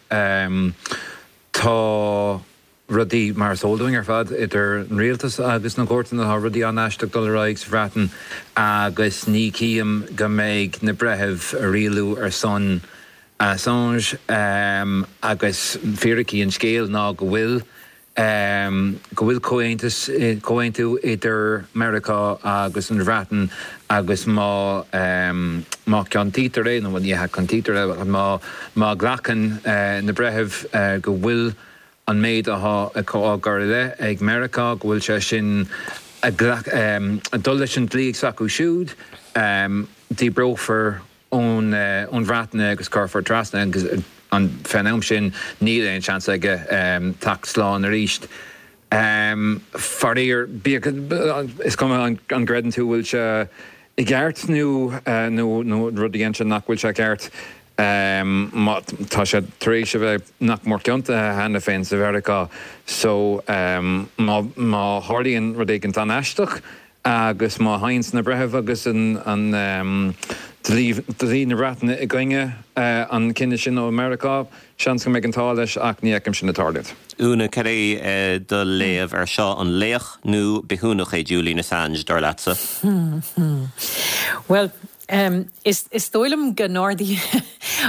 Tá. rudaí, mar is eol dúinn ar fad, idir an rialtas agus na cúirteanna, tá rudaí an-aisteach ag dul ar aghaidh sa Bhreatain agus ní chím go mbeidh na breithimh ag rialú ar son Assange agus fíricí an scéil ná go bhfuil go bhfuil comhaontas, comhaontú idir Meiriceá agus an Bhreatain agus má má ciontaítear é, nó ní hea ciontaítear é, má má ghlacann na breithimh go bhfuil an méid atá á gcur i leith ag Meiriceá, go bhfuil sé sin ag dul leis an dlí s'acu siúd, díbreofar ón Bhreatain é agus cuirfear trasna agus fén am sin níl aon seans aige teacht slán arís. Faraor, bíodh, is cuma an gcreideann tú bhfuil sé i gceart nó nó rud a dhein sé nach bhfuil sé ceart, má tá sé tar éis a bheith nach mór ciontaithe cheana féin sa Mheiriceá so má má tharlaíonn rud éigint an-aisteach agus má théanns na breithimh agus an dlí dlí na Breataine i gcoinne an cinneadh sin ó Mheiriceá, seans go mbeidh an t-ádh leis ach ní fheicim sin ag tarlúint. Úna, cad é do léamh ar seo? An laoch nó bithiúnach é Julian Assange, dar leatsa? Bhuel. Is dóigh liom go n-ardaíonn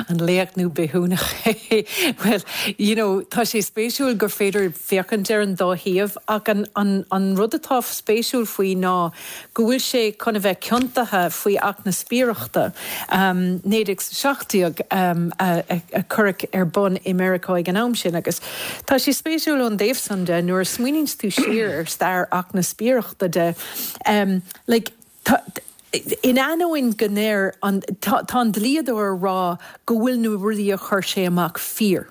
an laoch nó bithiúnach é. Bhuel, you know, tá sé spéisiúil gur féidir féachaint ar an dá thaobh ach an rud atá spéisiúil faoi ná go bhfuil sé chun a bheith ciontaithe faoi Acht na Spiaireachta, 1917 a cuireadh ar bun i Meiriceá ag an am sin agus tá sé spéisiúil ón dtaobh san de nuair a smaoiníonns tú siar ar stair Acht na Spiaireachta de, like, Tá, in ainneoin go ndeir an, tá, tá an dlíodóir a rá go bhfuil na rudaí a chuir sé amach fíor.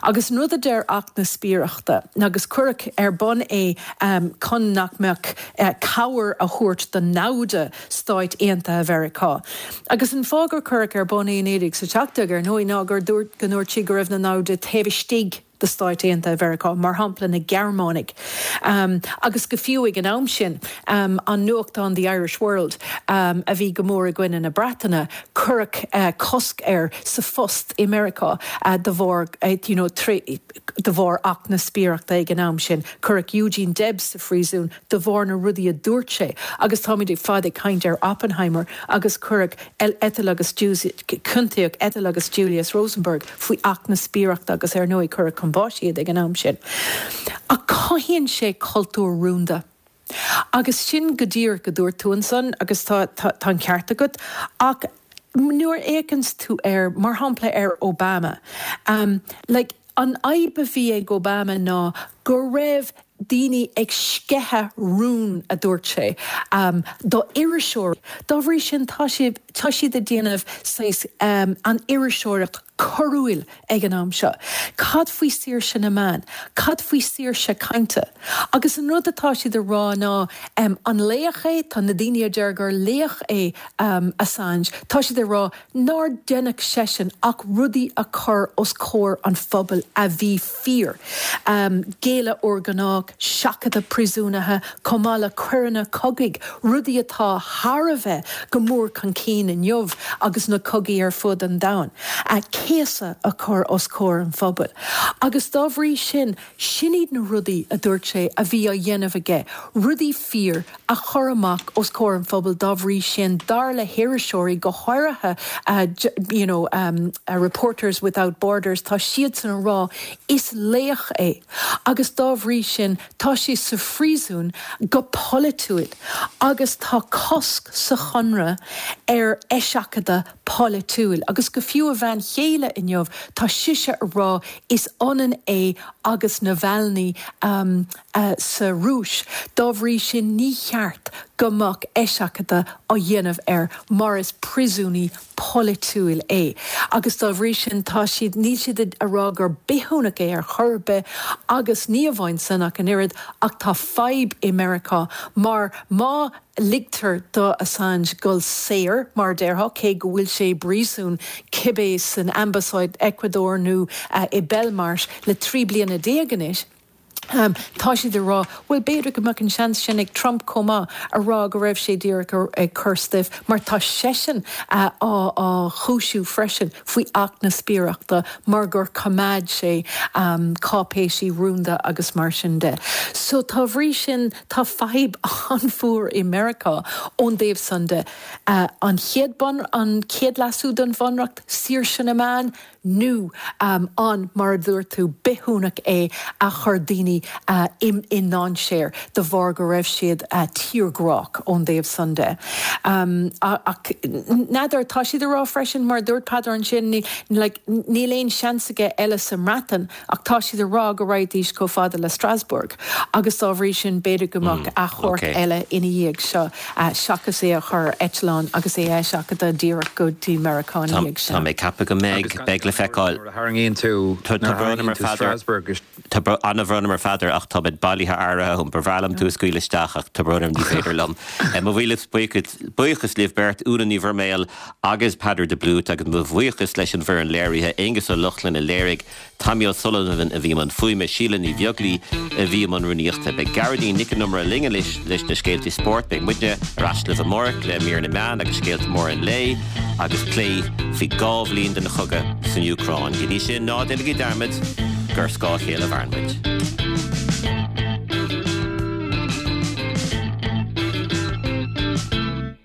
Agus an rud a deir Acht na Spiaireachta, agus cuireadh ar bun é chun nach mbeadh cabhair a thabhairt do namhda Stáit Aontaithe Mheiriceá. Agus an fáth gur cuireadh ar bun é i 1917, ar ndóigh, ná gur dúirt, go ndúirt siad go raibh na namhda taobh istigh de Stáit Aontaithe Mheiriceá, mar shampla na Gearmánaigh, agus go fiú ag an am sin, an nuachtán The Irish World, a bhí go mór i gcoinne na Breataine, cuireadh cosc air sa phost i Meiriceá de bharr, you know, de bharr Acht na Spiaireachta ag an am sin. Cuireadh Eugene Debs sa phríosún de bharr na rudaí a dúirt sé agus táimid ar fad ag caint ar Oppenheimer agus cuireadh Ethel agus ciontaíodh Ethel agus Julius Rosenberg faoi Acht na Spiaireachta agus ar ndóigh cuireadh chun báis iad ag an am sin. Ach cothaíonn sé cultúr rúnda. Agus sin go díreach a dúirt tú ansan agus tá tá an ceart agat ach nuair a fhéachanns tú air, mar shampla ar Obama, like an fhadhb a bhí ag Obama ná go raibh daoine ag sceitheadh rún, a dúirt sé, do iriseoirí. Dá bhrí sin, tá siad, tá siad ag déanamh saghas an iriseoireacht coiriúil ag an am seo. Cad faoi saoirse na meán? Cad faoi saoirse cainte? Agus an rud atá siad a rá ná, an laoch é? Tá na daoine a deir gur laoch é Assange, tá siad ag rá nár deineadh seisean ach rudaí a chur os comhair an phobail a bhí fíor. Géilleadh urghnách, seachadadh príosúnaithe, chomh maith le coireanna cogaidh, rudaí atá thar a bheith go mór chun cinn inniu agus na cogaí ar fud an domhain. Céasadh a chur os comhair an phobail. Agus dá bhrí sin, sin iad na rudaí, a dúirt sé, a bhí á dhéanamh aige, rudaí fíor a chur amach os comhair an phobail dá bhrí sin, dar le hiriseoirí, go háirithe you know Reporters Without Borders, tá siadsan a rá is laoch é agus dá bhrí sin tá sé sa phríosún go polaitiúil agus tá cosc sa chonradh ar eiseachadadh polaitiúil agus go fiú a bhean chéile inniu tá sise a rá is ionann é agus Navalny sa Rúis. Dá bhrí sin ní cheart go mbeadh eiseachadadh á dhéanamh air mar is príosúnaí polaitiúil é. Agus dá bhrí sin tá siad, níl siad a rá gur bithiúnach é ar chor ar bith agus ní amháin san ach an oiread ach tá fadhb i Meiriceá mar má ligtear do Assange dul saor, mar a déarfá, cé go bhfuil sé i bpríosún cibé san ambasáid Ecuador nó i Belmarsh le 13 bliana anois. Tá siad ag rá, bhuel, b'fhéidir go mbeadh an seans sin ag Trump chomh maith, a rá go raibh sé díreach ag cur stuif, mar tá seisean á chúisiú freisin faoi Acht na Spiaireachta mar gur choimeád sé cáipéisí rúnda agus mar sin de. So, dá bhrí sin, Tá fadhb an-mhór i Meiriceá ón dtaobh san de. An chéad bun, an chéad leasú don Bhunreacht, saoirse na meán, nó an, mar a dúirt tú, bithiúnach é a chuir daoine i ndainséar de bharr go raibh siad tírghrách ón dtaobh san de. Ach n'fheadar, tá siad ag rá freisin, mar a dúirt Peadar ansin, níl aon seans aige eile sa mBreatain, Ach tá siad ag rá go raghaidís chomh fada le Strasbourg agus dá bhrí sin b'fhéidir go mbeadh achomharc eile ina dhiaidh seo seachas é a chur ar eitleán agus é a eiseachadadh díreach go dtí Meiriceá ina dhiaidh sin. Tá mé ag ceapadh go mbeidh. Beidh le feiceáil. Nuair a tharraingíonn tú, nuair a tharraingíonn tú Strasbourg is. Tá an-bhrón orm a Pheadair ach tá muid bailithe áirithe. Ba bhreá liom tú a scaoileadh isteach ach tá brón orm ní féidir liom. Mo mhíle buíochas libh beirt, Úna Ní Mhuirméil agus Peadar de Blúit agus mo bhuíochas leis an bhfoireann léirithe, Aonghus Ó Lochlainn a léirigh, Tommy O'Sullivan a bhí i mbun fuaime, Síle Ní Bheaglaoi a bhí i mbun rúnaíochta. Beidh Gearóidín Nic an Iomaire linn anois leis na scéaltaí spóirt. Beidh muidne ar ais libh amárach le mír na meán agus scéalta móra an lae agus plé faoi 2 bhliain den chogadh san Úcráin. Go dtí sin, ná déanaigí dearmad gur ar scáth a chéile a mhaireann muid.